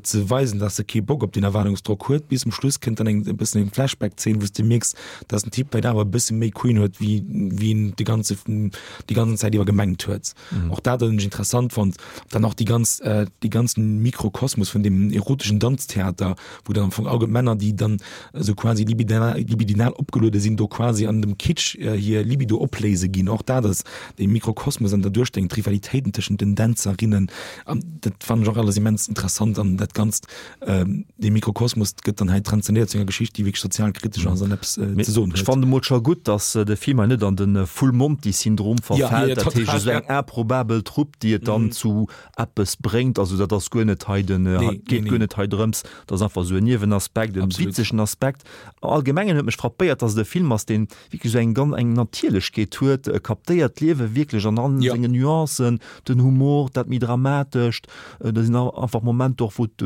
ze weisen, dass e kee Bock op deen Erwaardungsdrock huet. Bis um Schluss kënnt dann eng e bëssen eng Flashback-Zeen, wou s de mierks, dass den Typ vläicht awer e bësse méi Queen huet, wéi wéi en de ganze déi ganzen Zäit iwwer gemengt huet. Och dat hunn ech interessant fonnt. Dann och déi ganz dee ganzen Mikrokosmos vun deem eroteschen Danztheater, wou dann am Fong all Männer, déi dann esou quasi libidinal libidinal opgeluede sinn, do quasi an dem Kitsch hir Libido opléise ginn. Och dat ass dee Mikrokosmos an der Duerstellung, d'Rivalitéiten tëschent den Dänzerinnen. An dat fannen ech och alles immens interessant an dat Ganzt, dee Mikrokosmos gëtt dann hei transzendiert zu enger Geschicht, déi wierklech sozialkritesch ass an eppes ze soen Ech huet. fannen emol scho gutt, datt de Film hei net an de Full Monty Syndrom Ja, verfält, ja, dat heescht total, esou eng ja. improbabel Trupp, déi et dann zu eppes bréngt. Also dat ass guer net hei den, Nee, geet nee, guer nee. net hei drëms, dat ass einfach esou en Niewenaspekt, en Absolut. witzegen Aspekt. Am Allgemengen huet mech frappéiert, datt et e Film ass, deen wierklech esou eng ganz eng Natierlechkeet huet, e kaptéiert d'Liewe wierklech an all Ja. sengen Nuancen, den Humor, dat méi Dramatescht, do sinn einfach Momenter och, wou et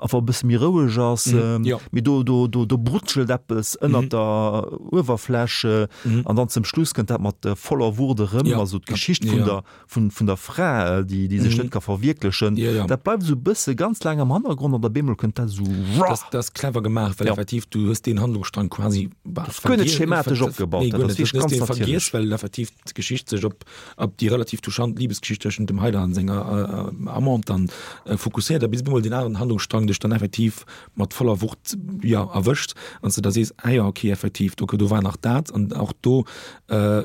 einfach e bësse méi roueg ass, Mhm, ja. mee do do do do brutschelt eppes ënnert Mhm. der Uewerfläch Mhm. an dann zum Schluss kënnt dat mat voller Wucht erëm, Ja. also d'Geschicht vun Ja. der vun vun der Fra, déi déi sech Mhm. net ka verwierklechen, Ja, ja. dat bleift esou e bësse ganz laang am Hannergrond an op eemol kënnt dat esou Dat dat ass clever gemaach, well Ja. effektiv du hues deen Handlungsstrang quasi bah, Dat ass guer net vergiess- schematesch ver- opgebaut, Nee, dat guer ass net. wierklech Du hues ganz dee vergiess, natierlech. well effektiv d'Geschicht sech op op déi relativ touchant Libesgeschicht tëschent dem Haider an senger äh, Amante dann äh, fokusséiert, a bis op eemol deen aneren Handlungsstrang dech dann effektiv mat voller Wucht ja erwëscht an s de da sees, ah ja, okay, effektiv, do do war nach dat an och do äh,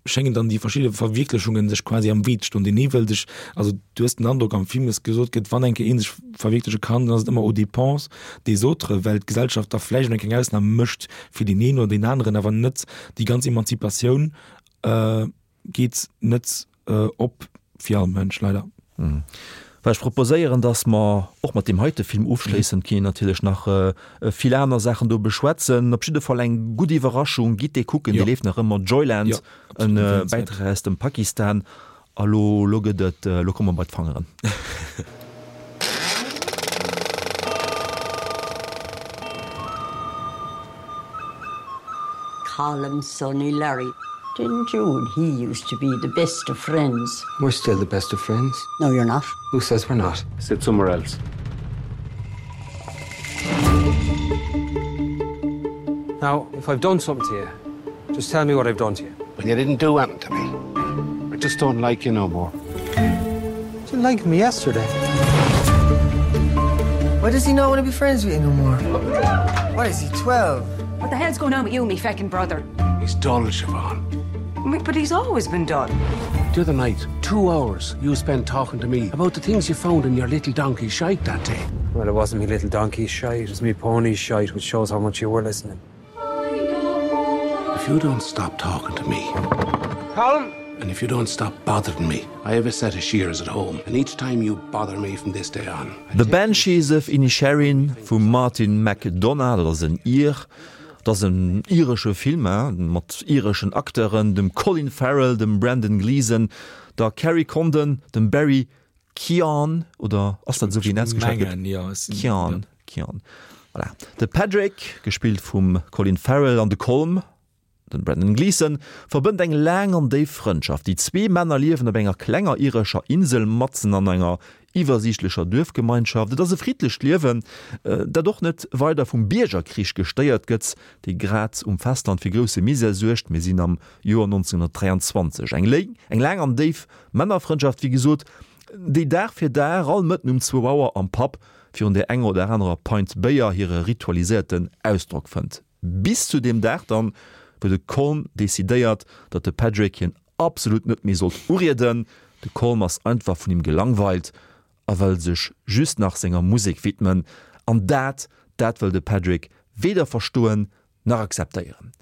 schéngen dann déi verschidde Verwierklechungen sech quasi am Wee ze stoen. Deen ee wëll sech, also du hues den Androck am Film, dass gesot gëtt, wann eng Kéier ee sech verwierkleche kann, dann ass et ëmmer aux dépenses des autres, well d'Gesellschaft da vläicht eng kleng Ausnam mécht fir deen een oder deen aneren, awer net déi ganz Emanzipatioun geet net op fir all Mënsch, leider. Well ech proposéieren, dass mer och mat deem heite Film ofschléissen. Et ginn natierlech nach vill aner Saachen do beschwätzen. Op jidde Fall eng gutt Iwwerraschung. Gitt dee kucken, dee leeft nach ëmmer. Joyland, en Bäitrag aus dem Pakistan. A lo, lo gëtt et, lo komme mer bei d'Fangeren. Colm Sonny Larry. Didn't you and he used to be the best of friends? We're still the best of friends. No, you're not. Who says we're not? Sit somewhere else. Now, if I've done something to you, just tell me what I've done to you. But you didn't do anything to me. I just don't like you no more. You didn't like me yesterday. Why does he not want to be friends with you no more? Why is he 12? What the hell's going on with you and me feckin' brother? He's dull, Siobhan. But he's always been dull. The other night, two hours you spent talking to me about the things you found in your little donkey shite that day. Well, it wasn't me little donkey shite, it was me pony shite, which shows how much you were listening. If you don't stop talking to me, Colm! And if you don't stop bothering me, I have a set of shears at home, and each time you bother me from this day on. The Banshees of Inisherin vum Martin McDonagh, dat ass en Ir, dat ass en iresche Film mat ireschen Acteuren, dem Colin Farrell, dem Brendan Gleeson, der Kerry Condon, dem Barry Keoghan, oder ass dat esou wéi en ausgeschwat gëtt? Keoghan, Keoghan, voilà. De Padraic, gespillt vum Colin Farrell, an de Colm, Den Brendan Gleeson verbënnt eng laang an déif Frëndschaft. Déi zwee Männer liewen op enger klenger irescher Insel matzen an enger iwwersiichtlecher Duerfgemeinschaft. Et ass e friddlecht Liewen, dat och net weider vum Biergerkrich gestéiert gëtt, dee grad um Festland fir grousse Misär suergt. Mir sinn am Joer 1923. Eng léi, eng laang an déif Männerfrëndschaft, wéi gesot, déi Dag fir Dag all Mëtten um zwou Auer am Pub virun där enger oder anerer Pint Béier hire ritualiséierten Ausdrock fënnt. Bis zu deem Dag dann, wou de Colm decidéiert, datt de Padraic hien absolut net méi sollt urieden. De Colm ass einfach vun him gelangweilt a wëll sech just nach senger Musek widmen. An dat, dat wëll de Padraic weder verstoen nach akzeptéieren.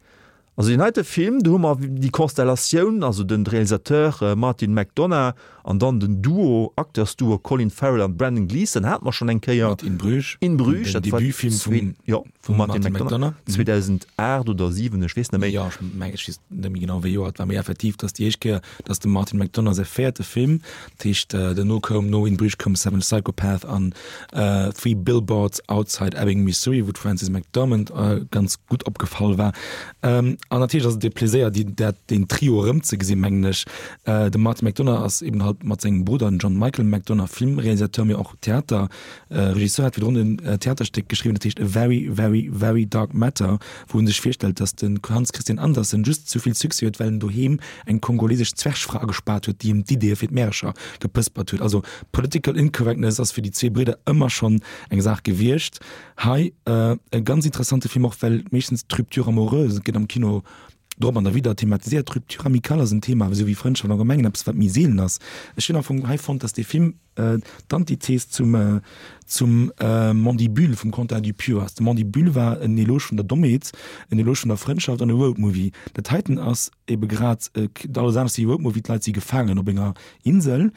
Also deen heite Film, do hu mer déi Konstellatioun, also den Realisateur Martin McDonagh an dann den Duo, Acteursduo Colin Farrell an Brendan Gleeson hate mer schonn eng Kéier. Mat In Bruges. In Bruges, dat war Debutfilm vum, jo, vum Martin McDonagh, 2008 oder 7, ech weess net méi. Jo, ech mengen, ech weess net méi genau wéi Joer et war, mee effektiv, dat ass déi éischt Kéier, datt de Martin McDonagh säi véierte Film, dat heescht duerno koum, no In Bruges koum Seven Psychopath an Three Billboards Outside Ebbing, Missouri, wou d'Frances McDormand ganz gutt opgefall war. An natierlech ass et e Pleséier, déi, dat, deen Trio erëmzegesinn, mengen ech. De Martin McDonagh ass eben halt mat sengem Brudder, den John Michael McDonagh, Filmrealisateur, mee och Theater, Regisseur, hat virdrun en Theaterstéck geschriwwen, dat heescht A Very, Very, Very Dark Matter, wou en sech virstellt, datt de Hans Christian Andersen just sou vill Succès huet, well en doheem eng kongolesesch Zwergfra agespaart huet, déi him d'Ideeë fir d'Märercher gepëspert huet. Also Political Incorrectness ass fir déi zwee Bridder ëmmer schonn eng Saach gewiescht. Hei e ganz interessante Film, och well meeschtens d'Rupture amoureuse gëtt am Kino drop an derwidder thematiséiert. D'Rupture amicale ass en Thema, esou wéi Frëndschaft am Allgemengen, eppes wat méi seelen ass. Ech hunn am Fong hei fonnt, datt dee Film d'Antithes zum zum Mandibule vum Quentin Dupieux ass. De Mandibule war en Eloge vun der Dommheet, en Eloge vun der Frëndschaft an e Roadmovie. Dat heiten ass ebe grad alles anescht wéi e Roadmovie, d'Leit si gefaangen op enger Insel.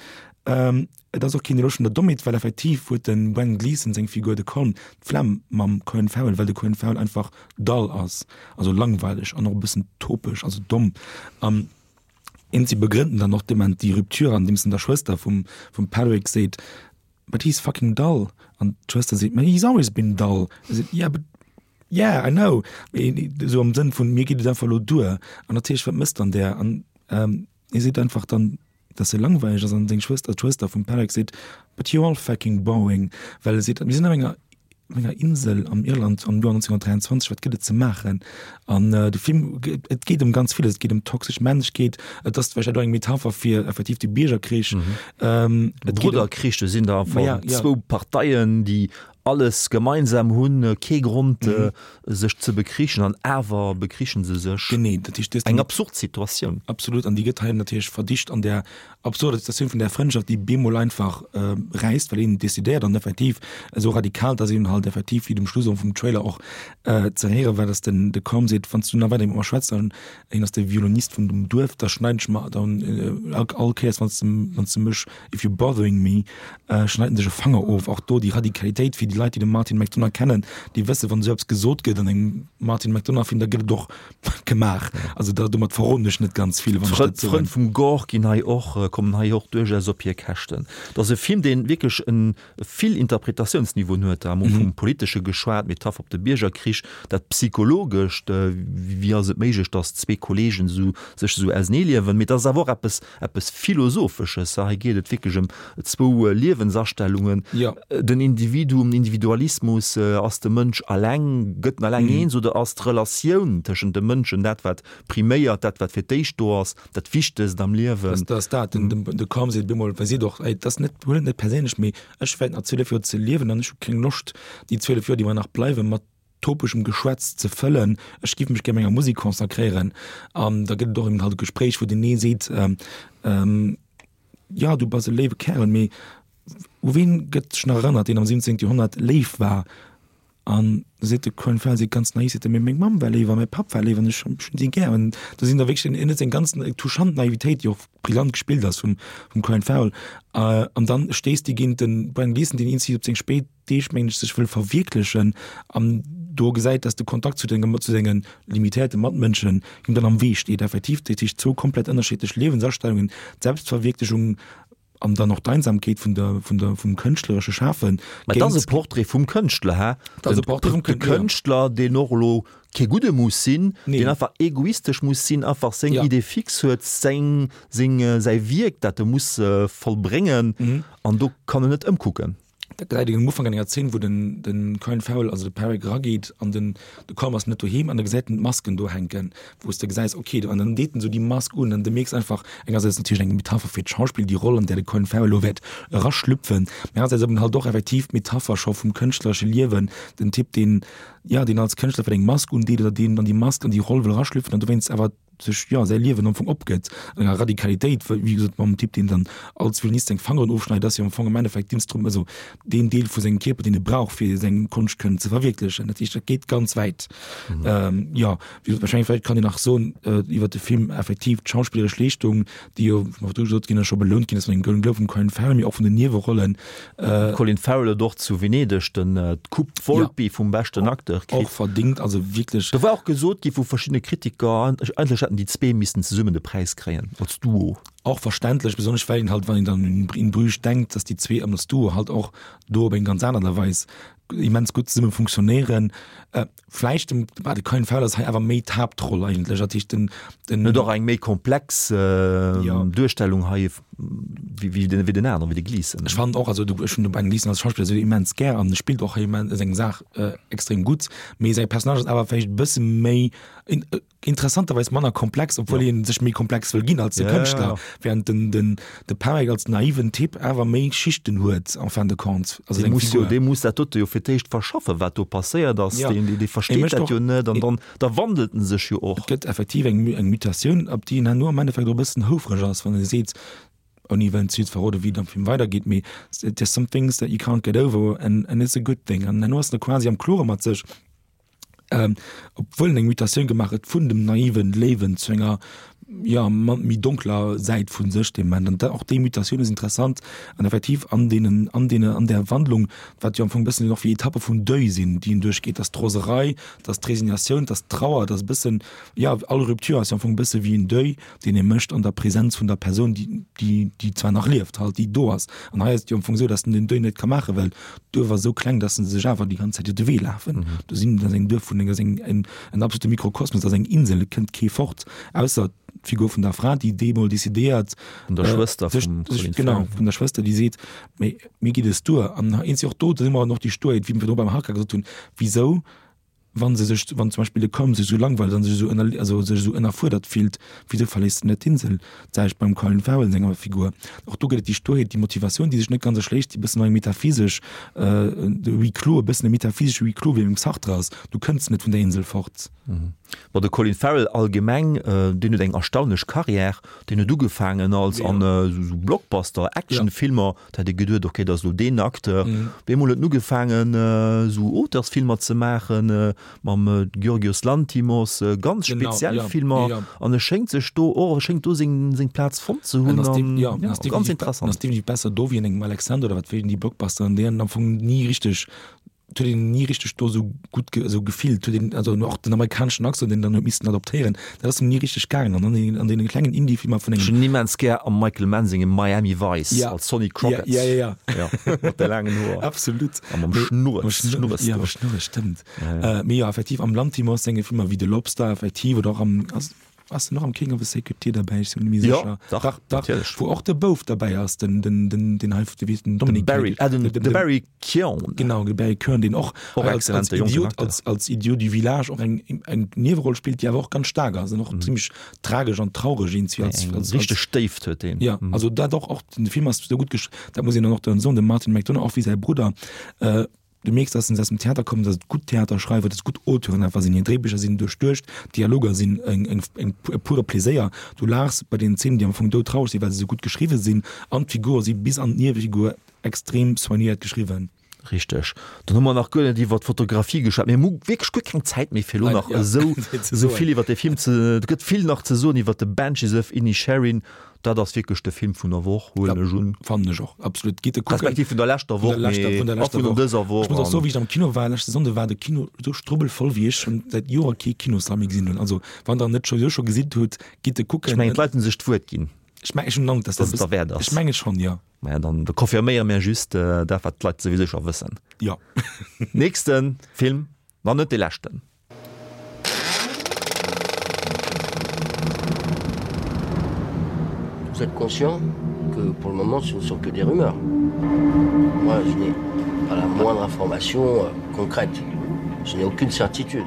Et ass och keen Eloge vun der Dommheet, well effektiv huet de Brendan Gleeson seng Figur, de Colm, d'Flemm mam Colin Farrell, well de Colin Farrell einfach dull ass, also langweileg an och e bëssen topeg, also domm. An si begrënnten dann och dement déi Rupture, andeems en der Schwëster vum vum Padraic seet, But he's fucking dull. An d'Schwëster seet, But he's always been dull. E seet, Yeah, but yeah, I know. Mee esou am Sënn vun, Mir geet et einfach elo duer. An natierlech, wat mécht dann där? An hie seet einfach dann, dass e langweileg ass an seng Schwëster, d'Schwëster vum Padraic seet, But you're all fucking boring, well e seet, mir sinn op enger, op enger Insel am Irland am Joer 1923, wat gëtt et ze maachen? An de Film, et geet ëm ganz villes, et geet ëm toxesch Männlechkeet, et ass vläicht och eng Metapher fir effektiv de Biergerkrich. Et geet ëm. Brudderkrich, do sinn der am Fong zwou Parteien, déi alles gemeinsam hunn, kee Grond sech ze bekrichen an awer bekrichen se sech. Genee, dat heescht, Eng absurd Situatioun. Absolut, an déi gëtt hei natierlech verdicht an där absurder Situatioun vun där Frëndschaft, déi bemol einfach räisst, well een decidéiert an effektiv esou radikal, dass een halt effektiv, wéi et um Schluss och vum Trailer och ze héiere war, dass den de Colm seet, Wann s du nach weider mat mer schwätz, dann, hien ass de Violonist vun dem Duerf, da schneiden ech mer dann all Kéiers, wann s de, wann s de mech If you're bothering me, schneit en sech e Fanger of. Och do déi Radikalitéit fir déi Leit, déi de Martin McDonagh kennen, déi wëssen, wann esou eppes gesot gëtt an engem Martin McDonagh-Film, da gëtt et och gemaach. Also da, domat verroden ech net ganz vill, wann ech dat soen. D'Frënn vum Gore ginn hei och, kommen hei och duerchaus op hir Käschten. Et ass e Film, dee wierklech en vill Interpretatiounsniveauen huet. Da hu mer vum Politesche geschwat, Metapher op de Biergerkrich, dat Psychologescht, wéi ass et méiglech, datt zwee Kolleegen esou sech esou auseneeliewen. Mee et ass awer och eppes eppes Philosophesches. Hei geet et wierklech ëm zwou Liewensastellungen, den Individuum, den Individualismus, ass de Mënsch alleng, gëtt en alleng eens oder ass d'Relatioun tëschent de Mënschen dat, wat priméiert, dat, wat fir d'éischt do ass, dat Wichtegst am Liewen? Dat ass dat. De Colm seet bemol, well seet och, ey, dat ass net, huel et net perséinlech, mee ech wäert nach 12 Joer ze liewen an ech hu keng Loscht, déi 12 Joer, déi mer nach bleiwen, mat topeschem Geschwätz ze fëllen, ech giff mech gär menger Musek consacréieren. An da gëtt et och eben halt e Gespréich, wou den ee seet, Jo, du bass e léiwe Kärel, mee u ween gëtt sech nach erënnert, deen am 17. Joerhonnert léif war? An da seet de Colin Farrell, seet ganz naiv, seet e, mee meng Mamm war léif a mäi Papp war léif an ech hunn si gär. An do sinn da wierklech, en huet seng ganz touchant Naivitéit, déi och brillant gespillt ass vum Colin Farrell. An dann stéisst dee géint de Brendan Gleeson, deen eenzi op seng spéit Deeg, mengen ech, sech wëll verwierklechen an do gesäit, dass de Kontakt zu denge zu senge limitéierte Matmënschen him dann am Wee steet. Effektiv, dat heescht zwou komplett ënnerschiddlech Liewensastellungen, d'Selbstverwierklechung an dann och d'Einsamkeet vun der vun der vum kënschtleresche Schafen. Mä et ass e Portrait vum Kënschtler, hä? Et ass e Portrait vum Kënschtler, jo. De Kënschtler, deen och elo kee Gudde muss sinn, deen einfach egoistesch muss sinn, einfach seng Idée fixe huet, seng seng säi Wierk, dat e muss vollbréngen an do kann en net ëmkucken. Dat gesäit een um Ufank an enger Zeen, wou den, den Colin Farrell, also de Perrick erageet an den, de Colm ass net doheem an da gesäit en d'Masken do hänken, wou s de gesäis, okay, an dann deet en esou déi Mask un an de mierks einfach, engersäits natierlech eng Metapher fir d'Schauspill, déi Roll, an där de Colin Farrell elo wäert eraschlüpfen, mä anersäits eben halt och effektiv d'Metapher scho vum kënschtleresche Liewen, den Typ, deen, jo, deen als Kënschtler vläicht eng Mask undeet oder deen an déi Mask, an déi Roll wëll eraschlüpfen an dowéinst awer. sech, jo, säi Liewen am Fong opgëtt an enger Radikalitéit, wéi gesot mam Typ, deen dann als Violinist seng Fangeren ofschneit, ass jo am Fong am Endeffekt d'Instrum-, also deen Deel vu sengem Kierper, deen e brauch, fir seng Konscht kënnen ze verwierklechen. Dat heescht, dat geet ganz wäit. Jo, wéi gesot, wahrscheinlech vläicht kann een nach soen iwwert de Film, effektiv d'schauspilleresch Leeschtung, déi jo, wéi virdru gesot ginn ass, scho belount ginn ass mat engem Golden Globe vum Colin Farrell, mee och vun den Niewerollen. Colin Farrell huet och zu Venedeg den d'Coupe Volpi vum beschten Acteur kritt. Och verdingt, also wierklech. Do war och gesot gi vu verschiddene Kritiker, eigentlech hätten déi zwee missen zesummen de Präis kréien, als Duo. Och verständlech, besonnesch well een halt, wann een dann un In Bruges denkt, dass déi zwee als Duo halt och do op eng ganz aner Art a Weis immens gutt zesumme funktionéieren. Vläicht dem bah, de Colin Farrell ass hei awer méi d'Haaptroll eigentlech, dat heescht den, den. Huet och eng méi komplex ja. Duerstellung hei wéi, wéi den, wéi den aneren, wéi de Gleeson. Ech fannen och, also du, ech hunn de Ben Gleeson als Schauspiller esou immens gär an e spillt och hei immens seng Saach äh, extrem gutt, mee säi Personnage ass awer vläicht e bësse méi in, äh, interessanterweis manner komplex, obwuel ja. hien sech méi komplex wëll ginn als de ja, Kënschtler, ja, ja. während den, den, de Perek als naiven Typ awer méi Schichten huet en fin de compte. Also dee muss jo, dee muss dat dote jo fir d'éischt verschaffen, wat do passéiert ass. Ja. Deen, dee, dee versteet dat jo net an dann da wandelt en sech jo och. Et gëtt effektiv eng, eng Mutatioun, op déi en herno am Endeffekt och e bëssen houfreg ass, wann e seet, ouni wëllen ze vill ze verroden, wéi et am Film weidergeet, mee there's some things that you can't get over and, and it's a good thing. An herno ass en quasi am Klore mat sech. obwuel en eng Mutatioun gemaach huet vun dem naiven Léiwen zu enger ja méi donkler Säit vu sech dee Moment. An och déi Mutatioun ass interessant an effektiv an deenen an deene an där Wandlung, wat jo am Fong e bëssen och wéi Etappe vum Deuil sinn, déi en duerchgeet, dass d'Roserei, dass d'Resignatioun, dass d'Trauer, dass e bëssen, ja all Rupture ass jo am Fong e bësse wéi en Deuil, deen ee mécht an der Präsenz vun der Persoun, déi, déi, déi zwar nach lieft, halt, déi do ass. An hei ass et jo am Fong esou, datt en den Deuil net ka maachen, well d'Duerf ass esou kleng, datt se sech awer déi ganz Zäit iwwer de Wee lafen. Do sinn, dat ass eng Duerf vun enger, eng, en, en absolute Mikrokosmos, dat ass eng Insel, et kënnt kee fort, ausser d'Figur vun der Fra, déi deemol decidéiert, Vun der Schwëster vum Colin Farrell. Genau, vun der Schwëster, déi seet, Mee mir geet es duer. An eenzeg och do, do si mer och déi Sturheet, wéi mir virdru beim Harka gesot hunn, wisou Wann se sech, wann zum Beispill de Colm sech esou langweilt an sech esou ënner, also sech esou ënnerfuerdert fillt, wisou verléisst en net d'Insel? D'selwecht beim Colin Farrell senger Figur. Och do gëtt et déi Sturheet, déi Motivatioun, déi sech net ganz erschléisst, déi e bëssen och eng metaphysesch, de Huis clos, e bëssen e metaphysesche Huis clos wéi beim Sartre ass, Du kënns net vun der Insel fort. Bon, de Colin Farrell allgemeng, deen huet eng erstaunlech Carrière. Deen huet ugefaangen als an esou Blockbuster, Actionfilmer. Da hätt ee geduet, ok, dat ass elo deen Acteur. Op eemol huet en ugefaangen, esou Auteursfilmer ze maachen, mam Giorgios Lanthimos, ganz speziell Filmer. An e schéngt sech do och, e schéngt do seng, seng Plaz fonnt ze hunn. An jo, ganz interessant. En ass definitiv besser do wéi an engem Alexander oder wat wéi déi Blockbusteren, déi en am Fong ni richteg Et huet een ni richteg do esou gutt ge esou gefillt, huet een also och den amerikaneschen Accent, deen dann huet missen adoptéieren, dat ass em ni richteg gaangen. An an an deene klengen Indie-Filmer vun engem. Ech hunn en immens gär am Michael Mann sengem Miami Vice Ja. als Sonny Crockett. Ja, ja, ja, ja. Ja, mat de laangen Hoer. Absolut. A mam Schnurres, Schnurres. Ja, mam Schnurres, stëmmt. Ja, ja. Mee jo, effektiv am Lanthimos senge Filmer wéi The Lobster, effektiv, oder och am, ass, Ass en och am King of the Sacred Deer derbäi? Ech sinn mir net méi Jo, sécher. dach, Dach, dach. natierlech. Wou och de Bouf derbäi ass, den, den, den, den hei, wéi heescht den, Den Dominic Barry, ah, den, de Barry Keoghan. Genau, de Barry Keoghan, deen och Och hei als, als exzellente jonken Idiot, Acteur. als, als Idiot du village och eng, eng Nieweroll spillt, déi awer och ganz staark ass an och zimmlech tragesch an traureg iergendwéi als, Eng als, richteg als, Déift huet deen. ja, also dat och, och den Film ass esou gutt gesch-, dat muss een dann och dann soen, dem Martin McDonagh, och wéi säi Brudder, äh, Du mierks, dass se aus dem Theater kommen, dass et gutt Theaterschreiwer, dass et gutt Auteuren einfach sinn. Hir Dréibicher sinn duerchduecht, d'Dialoger sinn eng, eng, eng, e pure Pleséier. Du laachs bei deenen Zeenen, déi am Fong doudtraureg sinn, well se esou gutt geschriwwe sinn. An d'Figure si bis an d'Niewefigur extrem soignéiert geschriwwen. Richteg. Dann hu mer nach guer net iwwer d'Fotografie geschwat. Mir hu wierklech guer keng Zäit méi, fir elo nach esou, esou vill iwwer dee Film ze. Et gëtt vill nach ze soen iwwer The Banshees of Inisherin. Dat ass wierklech de Film vun der Woch, huelen ech un. Fannen ech och, absolut. Gitt e kucken. Respektiv vun der leschter Woch, mee och vun dëser Woch. Ech muss och soen, wéi ech am Kino war leschte Sonnde, war de Kino esou strubbelvoll, wéi ech schonn säit Joer kee Kinossall méi gesinn hunn. Also wann der en net scho scho gesinn hutt, gitt e kucken. Ech mengen, d'Leit hunn sech d'Wuert ginn. Ech mengen, ech hunn den Androck, dass et derwäert ass. Ech menge schonn, jo. Maja, dann confirméiere mir just dat, wat d'Leit souwisou scho wëssen. Jo. Nächste Film, ma net dee leschten. Vous êtes conscient que pour le moment ce ne sont que des rumeurs. Moi je n'ai pas la moindre information euh, concrète. Je n'ai aucune certitude.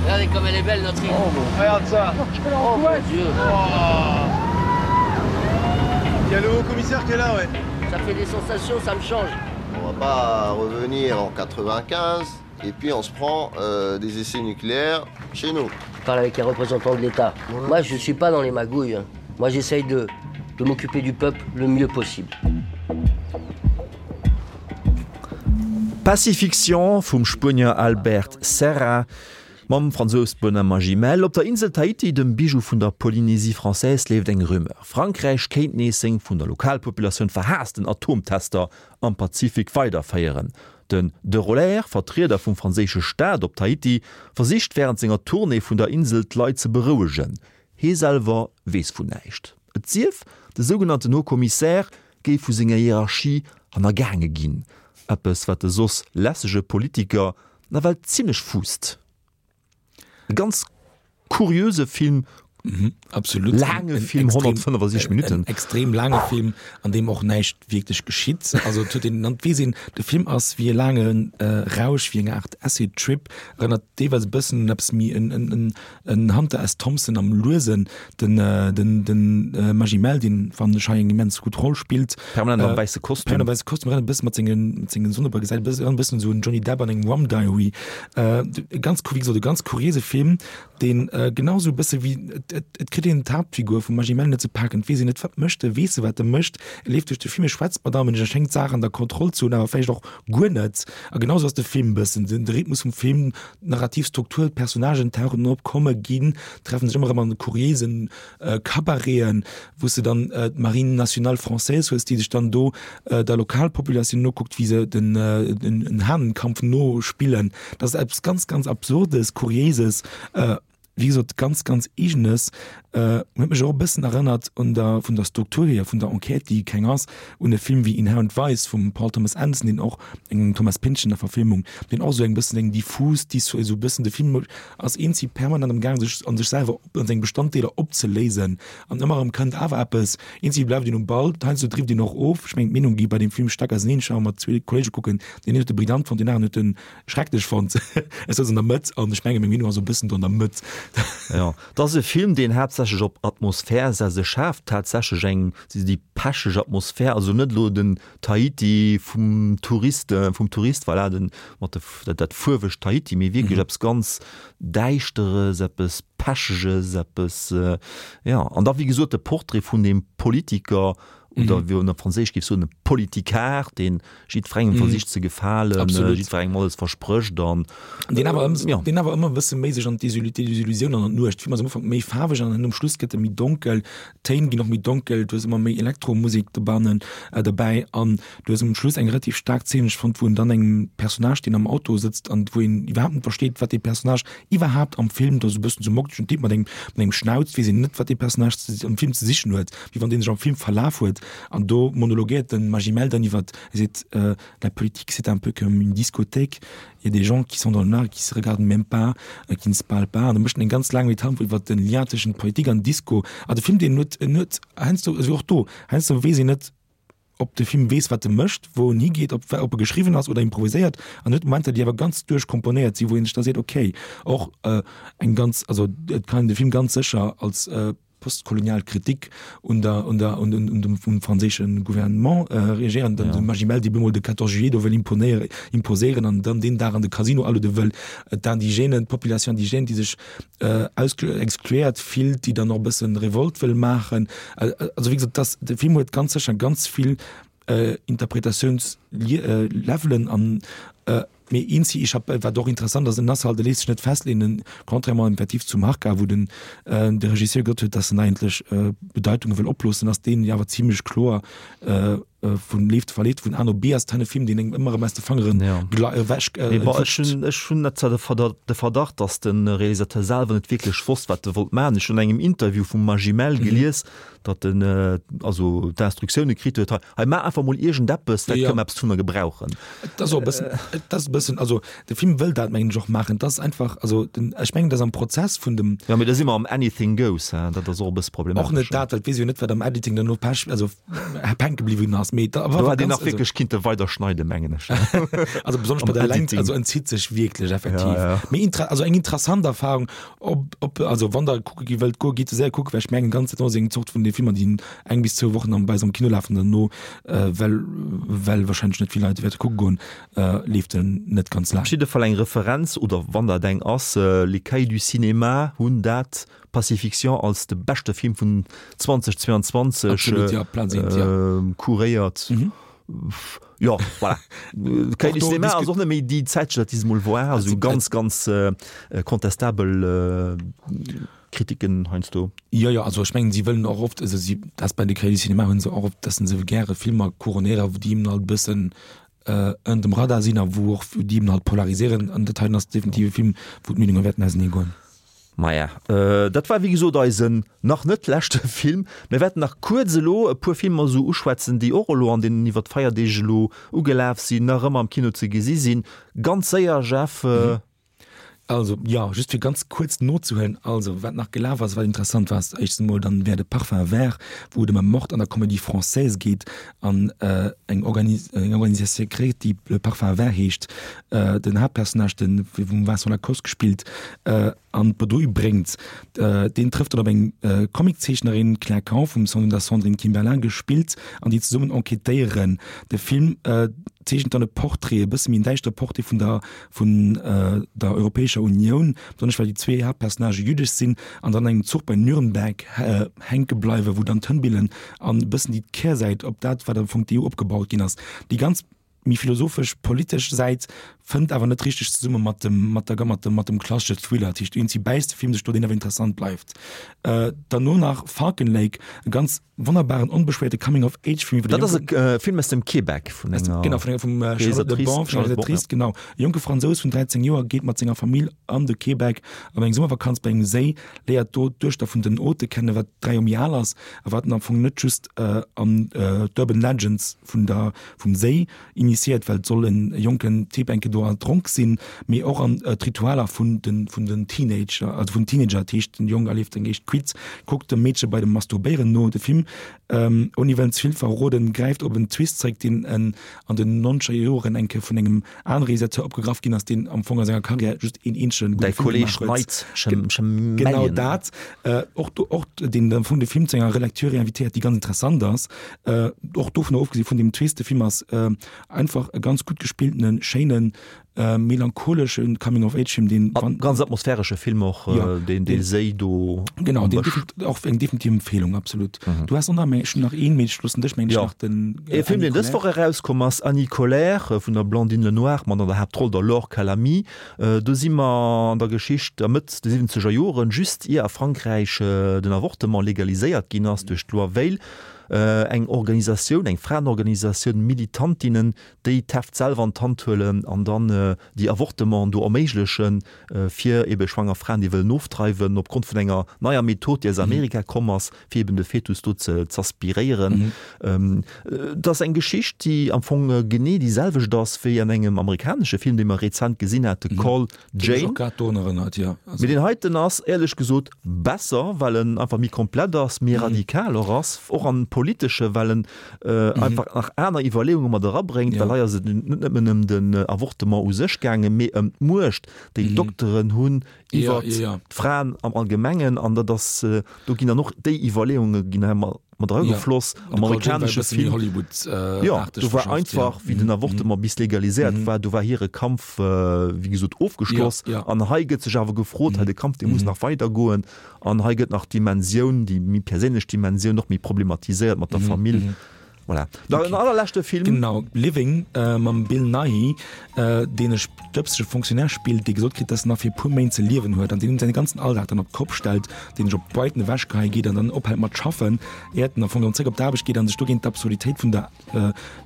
Regardez comme elle est belle notre île. Oh, regarde ça. Oh, mon Dieu. Oh. Il y a le haut commissaire qui est là ouais. Ça fait des sensations, ça me change. On va pas revenir en 95. Et puis on se prend euh, des essais nucléaires chez nous. Je parle avec un représentant de l'État. Moi, je ne suis pas dans les magouilles. Moi, j'essaye de, de m'occuper du peuple le mieux possible. Pacifiction vum Spuenier Albert Serra mam Fransous Benoît Magimel. Op der Insel Tahiti, dem Bijou vun der Polynésie française, leeft eng Rumeur, Frankräich kéint nees seng vun der Lokalpopulatioun verhaassten Atomtester am Pazifik weiderféieren. Den de Roller, Vertrieder vum franséische Staat op Tahiti, versicht wärend senger Tournée vun der Insel d'Leit ze berouegen. Hie selwer weess vun näischt. Et sief, de sougenannten Haut Commissaire géif vu senger Hierarchie hannergaange ginn, eppes wat de soss lässege Politiker nawell zimmlech fuusst. E ganz kuriöse Film, absolut laange Film, 165 Minutten. En extrem laange Film, an deem och näischt wierklech geschitt. Also et huet een, an et weess een, de Film ass wéi e laange Rausch, wéi eng Aart Acid Trip, erënnert deelweis e bëssen un eppes méi en, en, en En Hunter S. Thompson am Luesen, den den den Magimel, deen fannen ech hei eng immens gutt Roll spillt. Permanent am wäisse Kostüm. Permanent am wäisse Kostüm, erënnert e bëssen mat sengen mat sengen Sonnebrëll, gesäit e bëssen erënnert e bëssen esou un Johnny Depp an engem Rum Diary. E ganz wéi gesot e ganz kuriéise Film, deen genau esou e bësse wéi et et et kritt een d'Haaptfigur vum Magimel net ze paken, et weess een net wat mécht e, weess e wat e mécht, e leeft duerch de Film, e schwätzt mat allem, e schéngt d'Saach an der Kontroll ze hunn, awer vläicht och guer net. A genau esou ass de Film e bëssen, den de Rhythmus vum Film, D'narrativ Struktur, d'Personnagen tauchen op, komme, ginn, treffen sech ëmmer erëm an kuriéisen Cabareten, wou s de dann d'Marine nationale française hues, déi sech dann do der Lokalpopulatioun nokuckt, wéi se den den Hahnenkampf nospillen. Dat ass eppes ganz, ganz Absurdes, Kuriéises, wéi gesot, ganz, ganz Eegenes. Huet mech och e bëssen erënnert un der, vun der Struktur hier, vun der Enquête, déi keng ass, un e Film wéi Inherent Vice vum Paul Thomas Anderson, deen och eng Thomas Pynchon Verfilmung, deen och esou eng bëssen eng diffus, déi esou e bëssen de Film ass eenzi permanent am gaang sech an sech selwer op an seng Bestanddeeler opzeléisen an ëmmer erëm kënnt awer eppes, eenzi bleift een um Ball, heiansdo drift een och of. Ech mengen d'Meenung gi bei deem Film staark auseneen. Ech war mat zwee Kollege kucken, deen een huet e brillant fonnt, deen aneren huet en schrecklech fonnt. Ech souz an der Mëtt an ech menge meng Meenung ass e bëssen do an der Mëtt. Jo, et ass e Film, deen haaptsächlech op Atmosphär setzt. E schaaft tatsächlech eng, déi pecheg Atmosphär, also net elo den Tahiti vum Tourist, vum Tourist, voilà, den, mat de, dat, dat fuerwegt Tahiti, mee wierklech eppes ganz Däischteres, eppes Pecheges, eppes, jo. An da, wéi gesot, de Portrait vun deem Politiker, oder wéi een op Franséisch géif soen, e Politicard, dee jiddwerengem versicht ze gefalen, jiddwerengem alles versprécht an. Deen awer ëm, deen awer ëmmer e bësse méi sech an d'Desillusioun an an d'Nuecht. De Film ass am Ufank méi faarweg an um Schluss gëtt e méi donkel. D'Téin ginn och méi donkel, du hues ëmmer méi Elektromusek dobannen, derbäi an du hues um Schluss eng relativ staark Zeen, ech fonnt, wou en dann engem Personnage, deen am Auto sëtzt an wou een iwwerhaapt net versteet, wat dee Personnage iwwerhaapt am Film, dat ass e bëssen esou moktegen Typ mat engem, mat engem Schnauz, weess een net, wat dee Personnage am Film ze sichen huet, wéi wann dee sech am Film verlaf huet an do monologuéiert de Magimel dann iwwert, e seet, La politique, c'est un peu comme une discothèque, il y a des gens qui sont dans le noir, qui se regardent même pas, qui ne se parlent pas. An da mécht en eng ganz laang Metapher iwwert den Lien tëschent Politik an Disco. A de Film, deen huet, en huet heiansdo, also och do, heiansdo weess een net, ob de Film weess, wat e mécht, wou en higeet, ob ob e geschriwwen ass oder improviséiert. An huet Momenter, déi awer ganz duerchkomponéiert sinn, wou een sech da seet, okay, och eng ganz, also et kann een de Film ganz sécher als postkolonial Kritik un der, un der, un, un dem vum franséische Gouvernement reagéieren, dann de Magimel, dee bemol de 14 juillet do wëll imponéieren, imposéieren an dann deen Dag an de Casino aluede wëll, d'Indigènen, d'Population indigène, déi sech ausge, exkluéiert fillt, déi dann och e bëssen Revolt wëll maachen. Also wéi gesot, dass de Film huet ganz sécher ganz vill Interpretatiouns-Levelen an Mee eenzi ich hab, wat och interessant ass, en ass halt, e léisst sech net festleeën, contrairement effektiv zum Harka, wou den de Regisseur gesot huet, dass en eigentlech Bedeitunge wëll oploossen, ass deen jo awer zimlech kloer vun Leeft verleet vun A no B ass. Et e Film, deen engem ëmmer erëm aus de Fangeren ewech Mee bon, ech hunn, ech hunn net zwar de Verdacht, dass de Realisateur selwer net wierklech wosst, wat e wollt maachen. Ech hunn an engem Interview vum Magimel gelies, datt en also d'Instruktioune kritt huet, hei, hei maach einfach mol iergendeppes, vläicht kënne mer eppes dovunner gebrauchen. Et ass och e bëssen, et ass e bëssen, also de Film wëll dat mengen ech och maachen, et ass einfach, also den, ech mengen, datt am Prozess vun dem. Jo, mee da si mer am Anything goes, hein, dat ass och e bësse problematesch. Och net dat, well et weess ee jo net, wat am Editing dann no Pech, also. hänke bliwwen ass. Mee da war hätt een nach wierklech kinnte weider schneiden, mengen ech. Also besonnesch bei der Längt, also en zitt sech wierklech effektiv. Ja, ja. Mee inter also eng interessant Erfahrung, ob, ob also wann der kucke gi wëllt goen, gitt se séier kucken, well ech mengen ganz dat ass eng Zort vun de Filmer, déi eng bis zwou Wochen am bei eis am Kino lafen, derno äh, well well wahrscheinlech net vill Leit wäerte kucke goen, äh, leeft en net ganz laang. Op jidde Fall eng Referenz, oder wann dat eng ass, Les Cahiers du Cinéma hunn dat Pacifiction als de beschte Film vun 2022 Absolut, ja, Platz eent, ja. kuréiert. Mhm. Jo, voilà. Cahiers du Cinéma ass och net méi déi Zäitschrëft, déi se mol war. Also ganz, ganz contestabel Kritiken heiansdo. Jo, jo, also ech mengen, si wëllen och oft, also si, dat bei de Cahiers du Cinéma hu se och oft, dass se gäre Filmer couronnéieren, wou déi eben halt e bëssen ënnert dem Radar sinn a wou och déi eben halt polariséieren. An dat heiten ass definitiv e Film, wou d'Meenunge wäerten ausenee goen. Maja, dat war wéi gesot eisen nach net leschte Film. Mir wäerten nach kuerz elo e puer Filmer esou uschwätzen, déi och elo an deenen iwwer d'Feierdeeg elo ugelaf sinn, nach ëmmer am Kino ze gesi sinn. Ganz séier, Jeff. Also, jo, just fir ganz kuerz nozehuelen, also wat nach gelaf ass, wat interessant war, ass éischtens emol dann wär de Parfum vert, wou et ëm e Mord an der Comédie française geet an eng Organi eng Organisation secrète, déi Le Parfum vert heescht, den Haaptpersonnage, de vum Vincent Lacoste gespillt, an d'Bredouille bréngt. Deen trëfft dann op eng Comiczeechnerin, Claire Kahn, vum vun der Sandrine Kiberlain gespillt, an déi zesummen enquêtéieren. De Film zeechent dann e Portrait, e bësse méi en däischtere Portrait vun der vun der Europäescher Unioun, besonnesch well déi zwee Haaptpersonnagë jüddesch sinn an dann an engem Zuch bei Nürnberg hänke bleiwen, wou dann d'Hënn billen an e bëssen déi Kehrsäit op dat, wat am Fong d'EU opgebaut ginn ass. Déi ganz méi philosophesch, politesch Säit fënnt awer net richteg zesumme mat dem, mat der, mat dem, mat dem klassesche Thriller. Dat heescht, iergendwéi bäisst de Film sech do, deen awer interessant bleift. Derno nach Falcon Lake, e ganz wonnerbaren, onbeschwéierte Coming-of-Age-Film iwwer e Dat ass e Film aus dem Québec vun enger genau, vun enger, vum Charlotte Le Bon, vun enger Realisatrice, genau. E jonke Fransous vun 13 Joer geet mat senger Famill an de Québec op eng Summervakanz bei engem Séi, léiert do d'Duechter vun den Hôte kennen, wat 3 Joer méi al ass a wat en am Fong net just an d'Urban Legends vun der, vum Séi initiéiert, well et soll en jonken Typ enke do erdronk sinn, mee och an d'Ritualer vun den, vun den Teenager, also vun Teenager, dat heescht den Jong erlieft eng éischt Cuite, kuckt dem Meedche bei dem Masturbéieren no. De Film, ouni wëllen ze vill verroden, gräift op en Twist zréck, deen en an den nonzeger Joren enke vun engem anere Realisateur opgegraff ginn ass, deen am Fong a senger Karriär just een eenzege gudde Film gemaach huet. Genau dat. Och do, och deen am Fong de Film zu enger Relecture invitéiert, déi ganz interessant ass. Och dovunner ofgesi vun deem Twist, de Film ass einfach e ganz gutt gespilltenen, schéinen, melancholesche Coming-of-Age-Film, deen. A ganz atmosphäresche Film och, deen dee Séi do. Genau, deen och eng definitiv Empfehlung, absolut. Du has och nach, ech hunn nach een, mee ech loossen dech, mengen ech, nach den. E Film, deen dës Woch erauskomm ass, Annie Colère vun der Blandine Lenoir mat an der Haaptroll der Laure Calamy. Do si mer an der Geschicht a Mëtt de siwwenzeger Joren, just ier a Frankräich den Avortement legaliséiert ginn ass duerch d'Loi Veil. Eng Organisatioun, eng Fraenorganisatioun, Militantinnen, déi d'Heft selwer an d'Hand huelen an dann déi Avortementen do erméiglechen, fir ebe schwanger Fraen, déi wëllen ofdreiwen, opgrond vun enger neier Method, déi aus Amerika komm ass, fir eben de Fetus do ze z'aspiréieren. Et ass eng Geschicht, déi am Fong genee déi selwecht ass wéi an engem amerikanesche Film, dee mer rezent gesinn hate, Call Jane. Mee deen heiten ass éierlech gesot besser, well en einfach méi komplett ass, méi radikal och ass, och am Politesche, well en einfach nach aner Iwwerleeunge mat erabréngt, well hei ass et net nëmmen ëm den Avortement u sech gaangen, mee ëm d'Muecht, déi d'Dokteren hunn iwwer d'Fraen am Allgemengen. An dat ass, do ginn dann och déi Iwwerleeunge ginn hei mat eragefloss. Am amerikanesche Film, jo, do war einfach, wéi den Avortement bis legaliséiert war, do war hire Kampf, wéi gesot, ofgeschloss. An hei gëtt sech awer gefrot, hei de Kampf, dee muss nach weidergoen. An hei gëtt nach d'Dimensioun, déi méi perséinlech Dimensioun och méi problematiséiert mat der Famill. Voilà. Dann en allerleschte Film. Genau, Living mam Bill Nighy, deen e stëbsege Fonctionnaire spillt, dee gesot kritt, dass en nach fir e puer Méint ze liewen huet an deen säi ganzen Alldag dann op d'Kopp stellt, deen sech op Brighton ewechgeheie geet an dann ophält mat schaffen, iert en am Fong erëm zréck op d'Aarbecht geet an sech dogéint d'Absurditéit vun der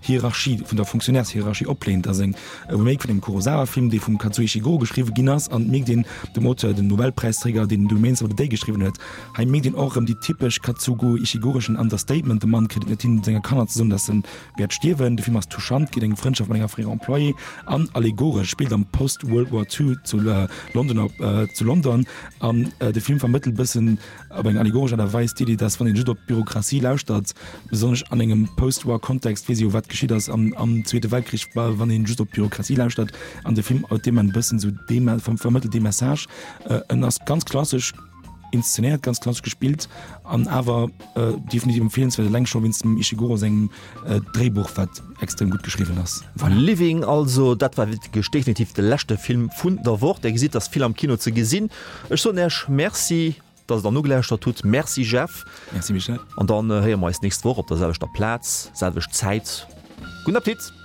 Hierarchie, vun der Fonctionnairs-Hierarchie opléint. Dat ass eng e Remake vun engem Kurosawa-Film, dee vum Kazuo Ishiguro geschriwwe ginn ass an et mierkt een dem Auteur, den Nobelpräisträger, deen The Remains of the Day geschriwwen huet, hei mierkt een och erëm déi typesch Kazugo Ishigureschen Understatement, de Mann kritt et net hin, senger Kanner. ze soen, dass en wäert stierwen. De Film ass touchant, geet eng Frëndschaft mat enger fréierer Employée an allegoresch, spillt am Post-World War II zu London zu London an de Film vermëttelt bëssen op eng allegoresch Aart a Weis d'Iddi, dass wann een just op d'Bürokratie lauschtert, besonnesch an engem Post-War Kontext, weess ee jo wat geschitt ass am am Zweete Weltkrich, wann een just op d'Bürokratie lauschtert an de Film huet deem e bëssen esou dee vermëttelt dee Message. En ass ganz klassesch inszenéiert, ganz klassesch gespillt an awer definitiv empfeelenswäert, eleng scho wéinst dem Ishiguro sengem Dréibuch, wat extrem gutt geschriwwen ass. Voilà. Living also, dat war wierklech definitiv de leschte Film vun der Woch. Där gesitt, dass vill am Kino ze gesinn. Ech soen Äech Merci, dass Der nogelauschtert hutt. Merci Jeff. Merci Michel. An dann héiere mer eis d'nächst Woch op der selwechter Plaz, selwecht Zäit. Gudden Appetit!